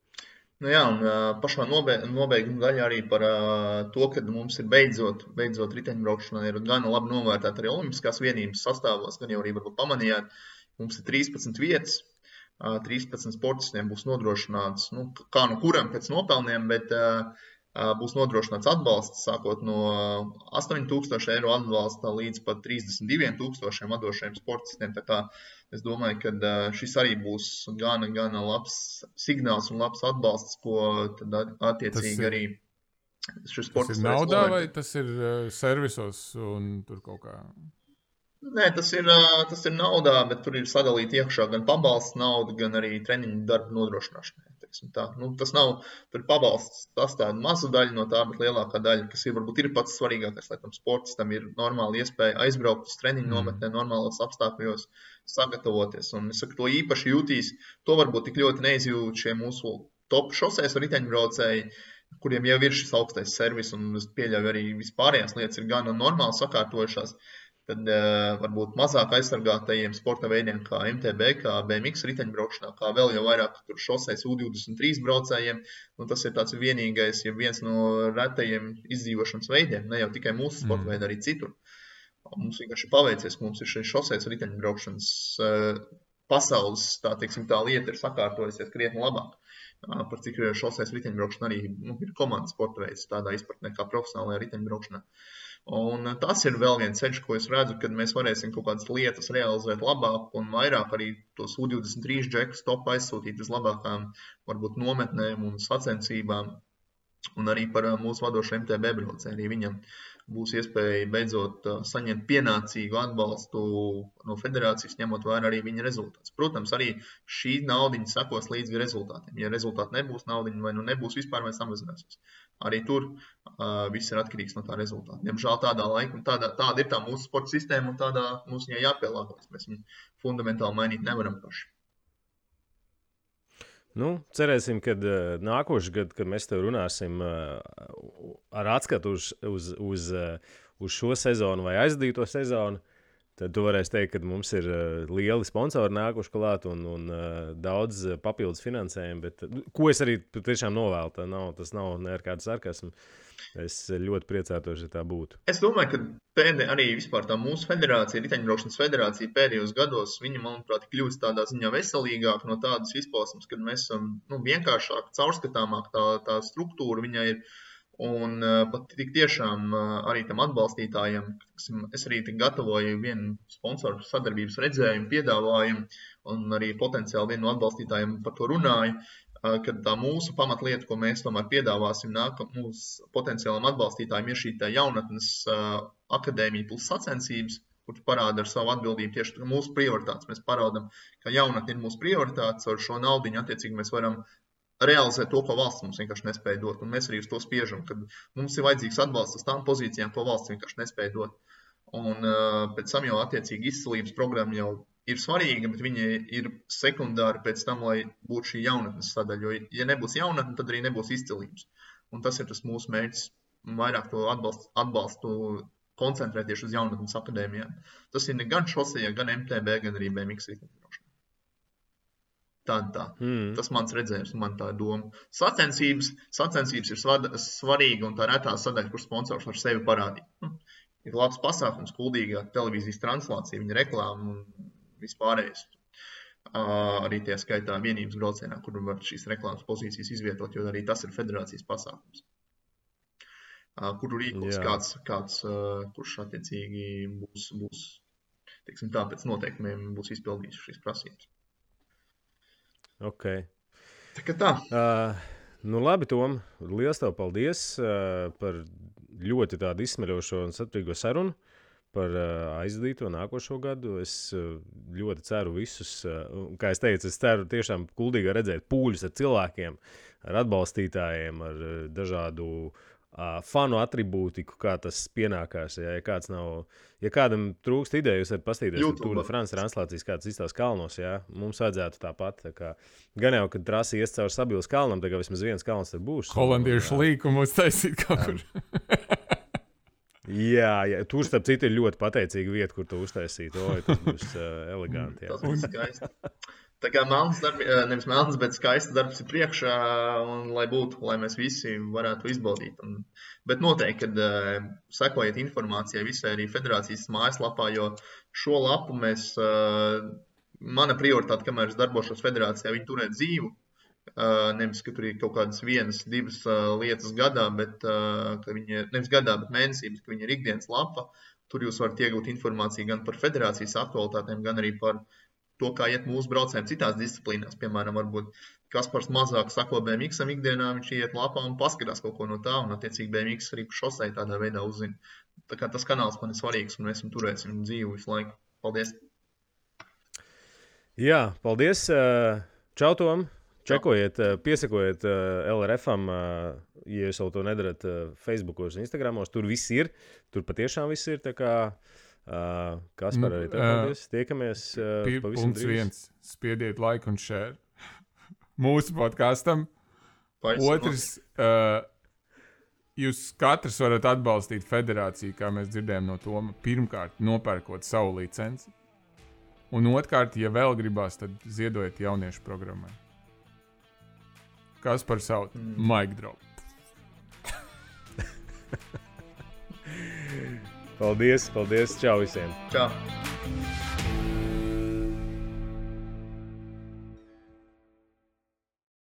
Jā, un pašā nobeiguma daļā arī par to, ka mums ir beidzot riteņbraukšanā ir gan labi novērtēt arī olimpiskās vienības sastāvos, gan jau arī varbūt pamanījāt, mums ir 13 vietas, 13 sportistiem būs nodrošināts, kā no kuram pēc nopelniem, bet būs nodrošināts atbalsts, sākot no 8000 eiro atbalsta līdz pat 32,000 vadošajiem sportistiem. Tā kā es domāju, ka šis arī būs gana labs signāls un labs atbalsts, ko tad attiecīgi arī šis sportists. Tas ir naudā vai tas ir servisos un tur kaut kā? Nē, tas ir naudā, bet tur ir sadalīta iekšā gan pabalsts nauda, gan arī treniņu darba nodrošināšanai. Tas nav, tur ir pabalsts, tas tāda maza daļa no tā, bet lielākā daļa, kas varbūt ir pats svarīgākais, lai tam sportistam ir normāla iespēja aizbraukt uz treniņu nometnē, normālos apstākļos sagatavoties. Un es saku, to īpaši jūtīs, to varbūt tik ļoti neizjūt šie mūsu top šoseis riteņbraucēji, kuriem jau ir šis augstais servis, un es pieļauju arī vispārējās lietas ir gan normāli sakārtojušās. tad varbūt mazāk aizsargātajiem sporta veidiem kā MTB, kā BMX riteņbraukšanā, kā vēl jau vairāk tur šoseis U23 braucējiem. Tas ir tāds vienīgais, ja viens no retajiem izdzīvošanas veidiem, ne jau tikai mūsu sporta veidi, arī citur. Mums vienkārši paveicies, ka mums ir šis šoseis riteņbraukšanas pasaules, tā lieta ir sakārtojusies krietni labāk. Par cik šoseis riteņbraukšana arī ir komandas sporta veids, tādā izpratnē kā profesionālajā riteņbraukšanā. Un tas ir vēl viens ceļš, ko es redzu, kad mēs varēsim kaut kādas lietas realizēt labāk un vairāk arī tos U23 džekus top aizsūtīt uz labākām varbūt nometnēm un sacensībām. Un arī par mūsu vadošo MTB braucēju. Arī viņam būs iespēja beidzot saņemt pienācīgu atbalstu no federācijas, ņemot vērā arī viņa rezultātus. Protams, arī šī naudiņa sekos līdz rezultātiem. Ja rezultāti nebūs naudiņa vai nebūs vispār vai samazināsies. Arī tur viss ir atkarīgs no tā rezultāta. Diemžēl tādā laika, tāda ir tā mūsu sporta sistēma un tādā mums viņai jāpielāgojas. Mēs viņu fundamentāli mainīt nevaram paši. Cerēsim, ka nākošais gads, kad mēs tev runāsim ar atskatu uz šo sezonu vai aizdīto sezonu, tad tu varēsi teikt, ka mums ir lieli sponsori nākuši klāt un daudz papildus finansējumu. Bet, ko es arī tiešām novēlu, tas nav ne ar kādu sarkasmu. Es ļoti priecātos, ja tā būtu. Es domāju, ka arī vispār tā mūsu federācija, riteņbraukšanas federācija pēdējos gados, viņa, manuprāt, kļūst tādā ziņā veselīgāk no tādas izpausmes, kad mēs esam vienkāršāk, caurskatāmāk tā struktūra viņai ir. Un pat tik tiešām arī tam atbalstītājiem, es arī gatavoju vienu sponsoru sadarbības redzējumu, piedāvājumu, un arī potenciāli vienu no atbalstītājiem par to runāju, kad tā mūsu pamatlieta, ko mēs tomēr piedāvāsim mūsu potenciālam atbalstītājiem, ir šī jaunatnes akadēmija plus sacensības, kur parāda ar savu atbildību tieši mūsu prioritātes. Mēs parādam, ka jaunatne ir mūsu prioritātes, ar šo naudiņu attiecīgi mēs varam realizēt to, ko valsts mums vienkārši nespēja dot. Un mēs arī uz to spiežam, kad mums ir vajadzīgs atbalsts uz tām pozīcijām, ko valsts vienkārši nespēja dot. Un pēc tam jau attiecīgi izcilības programma jau ir svarīga, bet viņa ir sekundāra pēc tam, lai būtu šī jaunatnes sadaļa. Jo, ja nebūs jaunatne, tad arī nebūs izcilības. Un tas ir tas mūsu mērķis, vairāk to atbalstu koncentrēt tieši uz jaunatnes akadēmijām. Tas ir gan šosejā, gan MTB, gan arī BMX riteņbraukšanā. Tā. Tas mans redzējums, man tā doma. Sacensības ir svarīga un tā retā sadaļa, kur sponsors var sevi parādīt. Ir labs pasākums, kuldīgā televīzijas translācija, viņa reklāma un vispārējais. Arī tie skaitā vienības braucienā, kur var šīs reklāmas pozīcijas izvietot, jo arī tas ir federācijas pasākums. Kuru rīkos kāds kurš attiecīgi būs teiksim tā, pēc noteikumiem būs izpildījis šīs prasības. Ok. Tā. Labi, Tom, liels tev paldies par ļoti tādu izsmeļošo un saturīgo sarunu par aizdīto nākošo gadu. Es ļoti ceru visus, kā es teicu, es ceru tiešām kuldīgi redzēt pūļus ar cilvēkiem, ar atbalstītājiem, ar dažādu fanu atribūtiku, kā tas pienākās. Ja kādam trūkst ideju, jūs varat pastīties Tour de France translācijas, kāds izstās kalnos, mums vajadzētu tāpat. Gan jau, kad trasi ies caur Sabilas kalnam, tā kā vismaz viens kalns tad būs. Holandiešu līkumu uztaisīt kaut kur. Jā, tur starp citu ir ļoti pateicīga vieta, kur to uztaisīt. Tas būs eleganti. Tas būs skaisti. Tā kā nevis melns, bet skaists darbs ir priekšā, un lai mēs visi varētu izbaudīt. Bet noteikti, kad sekojiet informācijai visai arī federācijas mājaslapā, jo šo lapu mana prioritāte, kamēr es darbošos federācijā, viņi turēt dzīvu. Nevis, ka tur ir kaut kādas vienas, divas lietas gadā, bet nevis gadā, bet mēnesī, bet ka viņi ir ikdienas lapa. Tur jūs varat iegūt informāciju gan par federācijas aktualitātēm, gan arī par to, kā iet mūsu braucējiem citās disciplīnās. Piemēram, varbūt Kaspars mazāk sako BMX-am ikdienā, viņš iet lapā un paskatās kaut ko no tā, un attiecīgi BMX arī šosei tādā veidā uzzina. Tā kā tas kanāls man ir svarīgs, un mēs turēsim dzīvu visu laiku. Paldies! Jā, paldies! Čau, Tom! Čekojiet, piesakojiet LRF-am, ja jūs vēl to nedarat Facebookos un Instagramos. Tur viss ir, tur patiešām viss ir, tā kā Kaspar arī paldies. Tiekamies pavisam drīz. Spiediet like un share mūsu podkastam. Otrs, jūs katrs varat atbalstīt federāciju, kā mēs dzirdējām no Toma, pirmkārt nopērkot savu licenci, un otrkārt, ja vēl gribās, tad ziedojiet jauniešu programmai. Kas par savu? Mic drop. Paldies, čau visiem! Čau!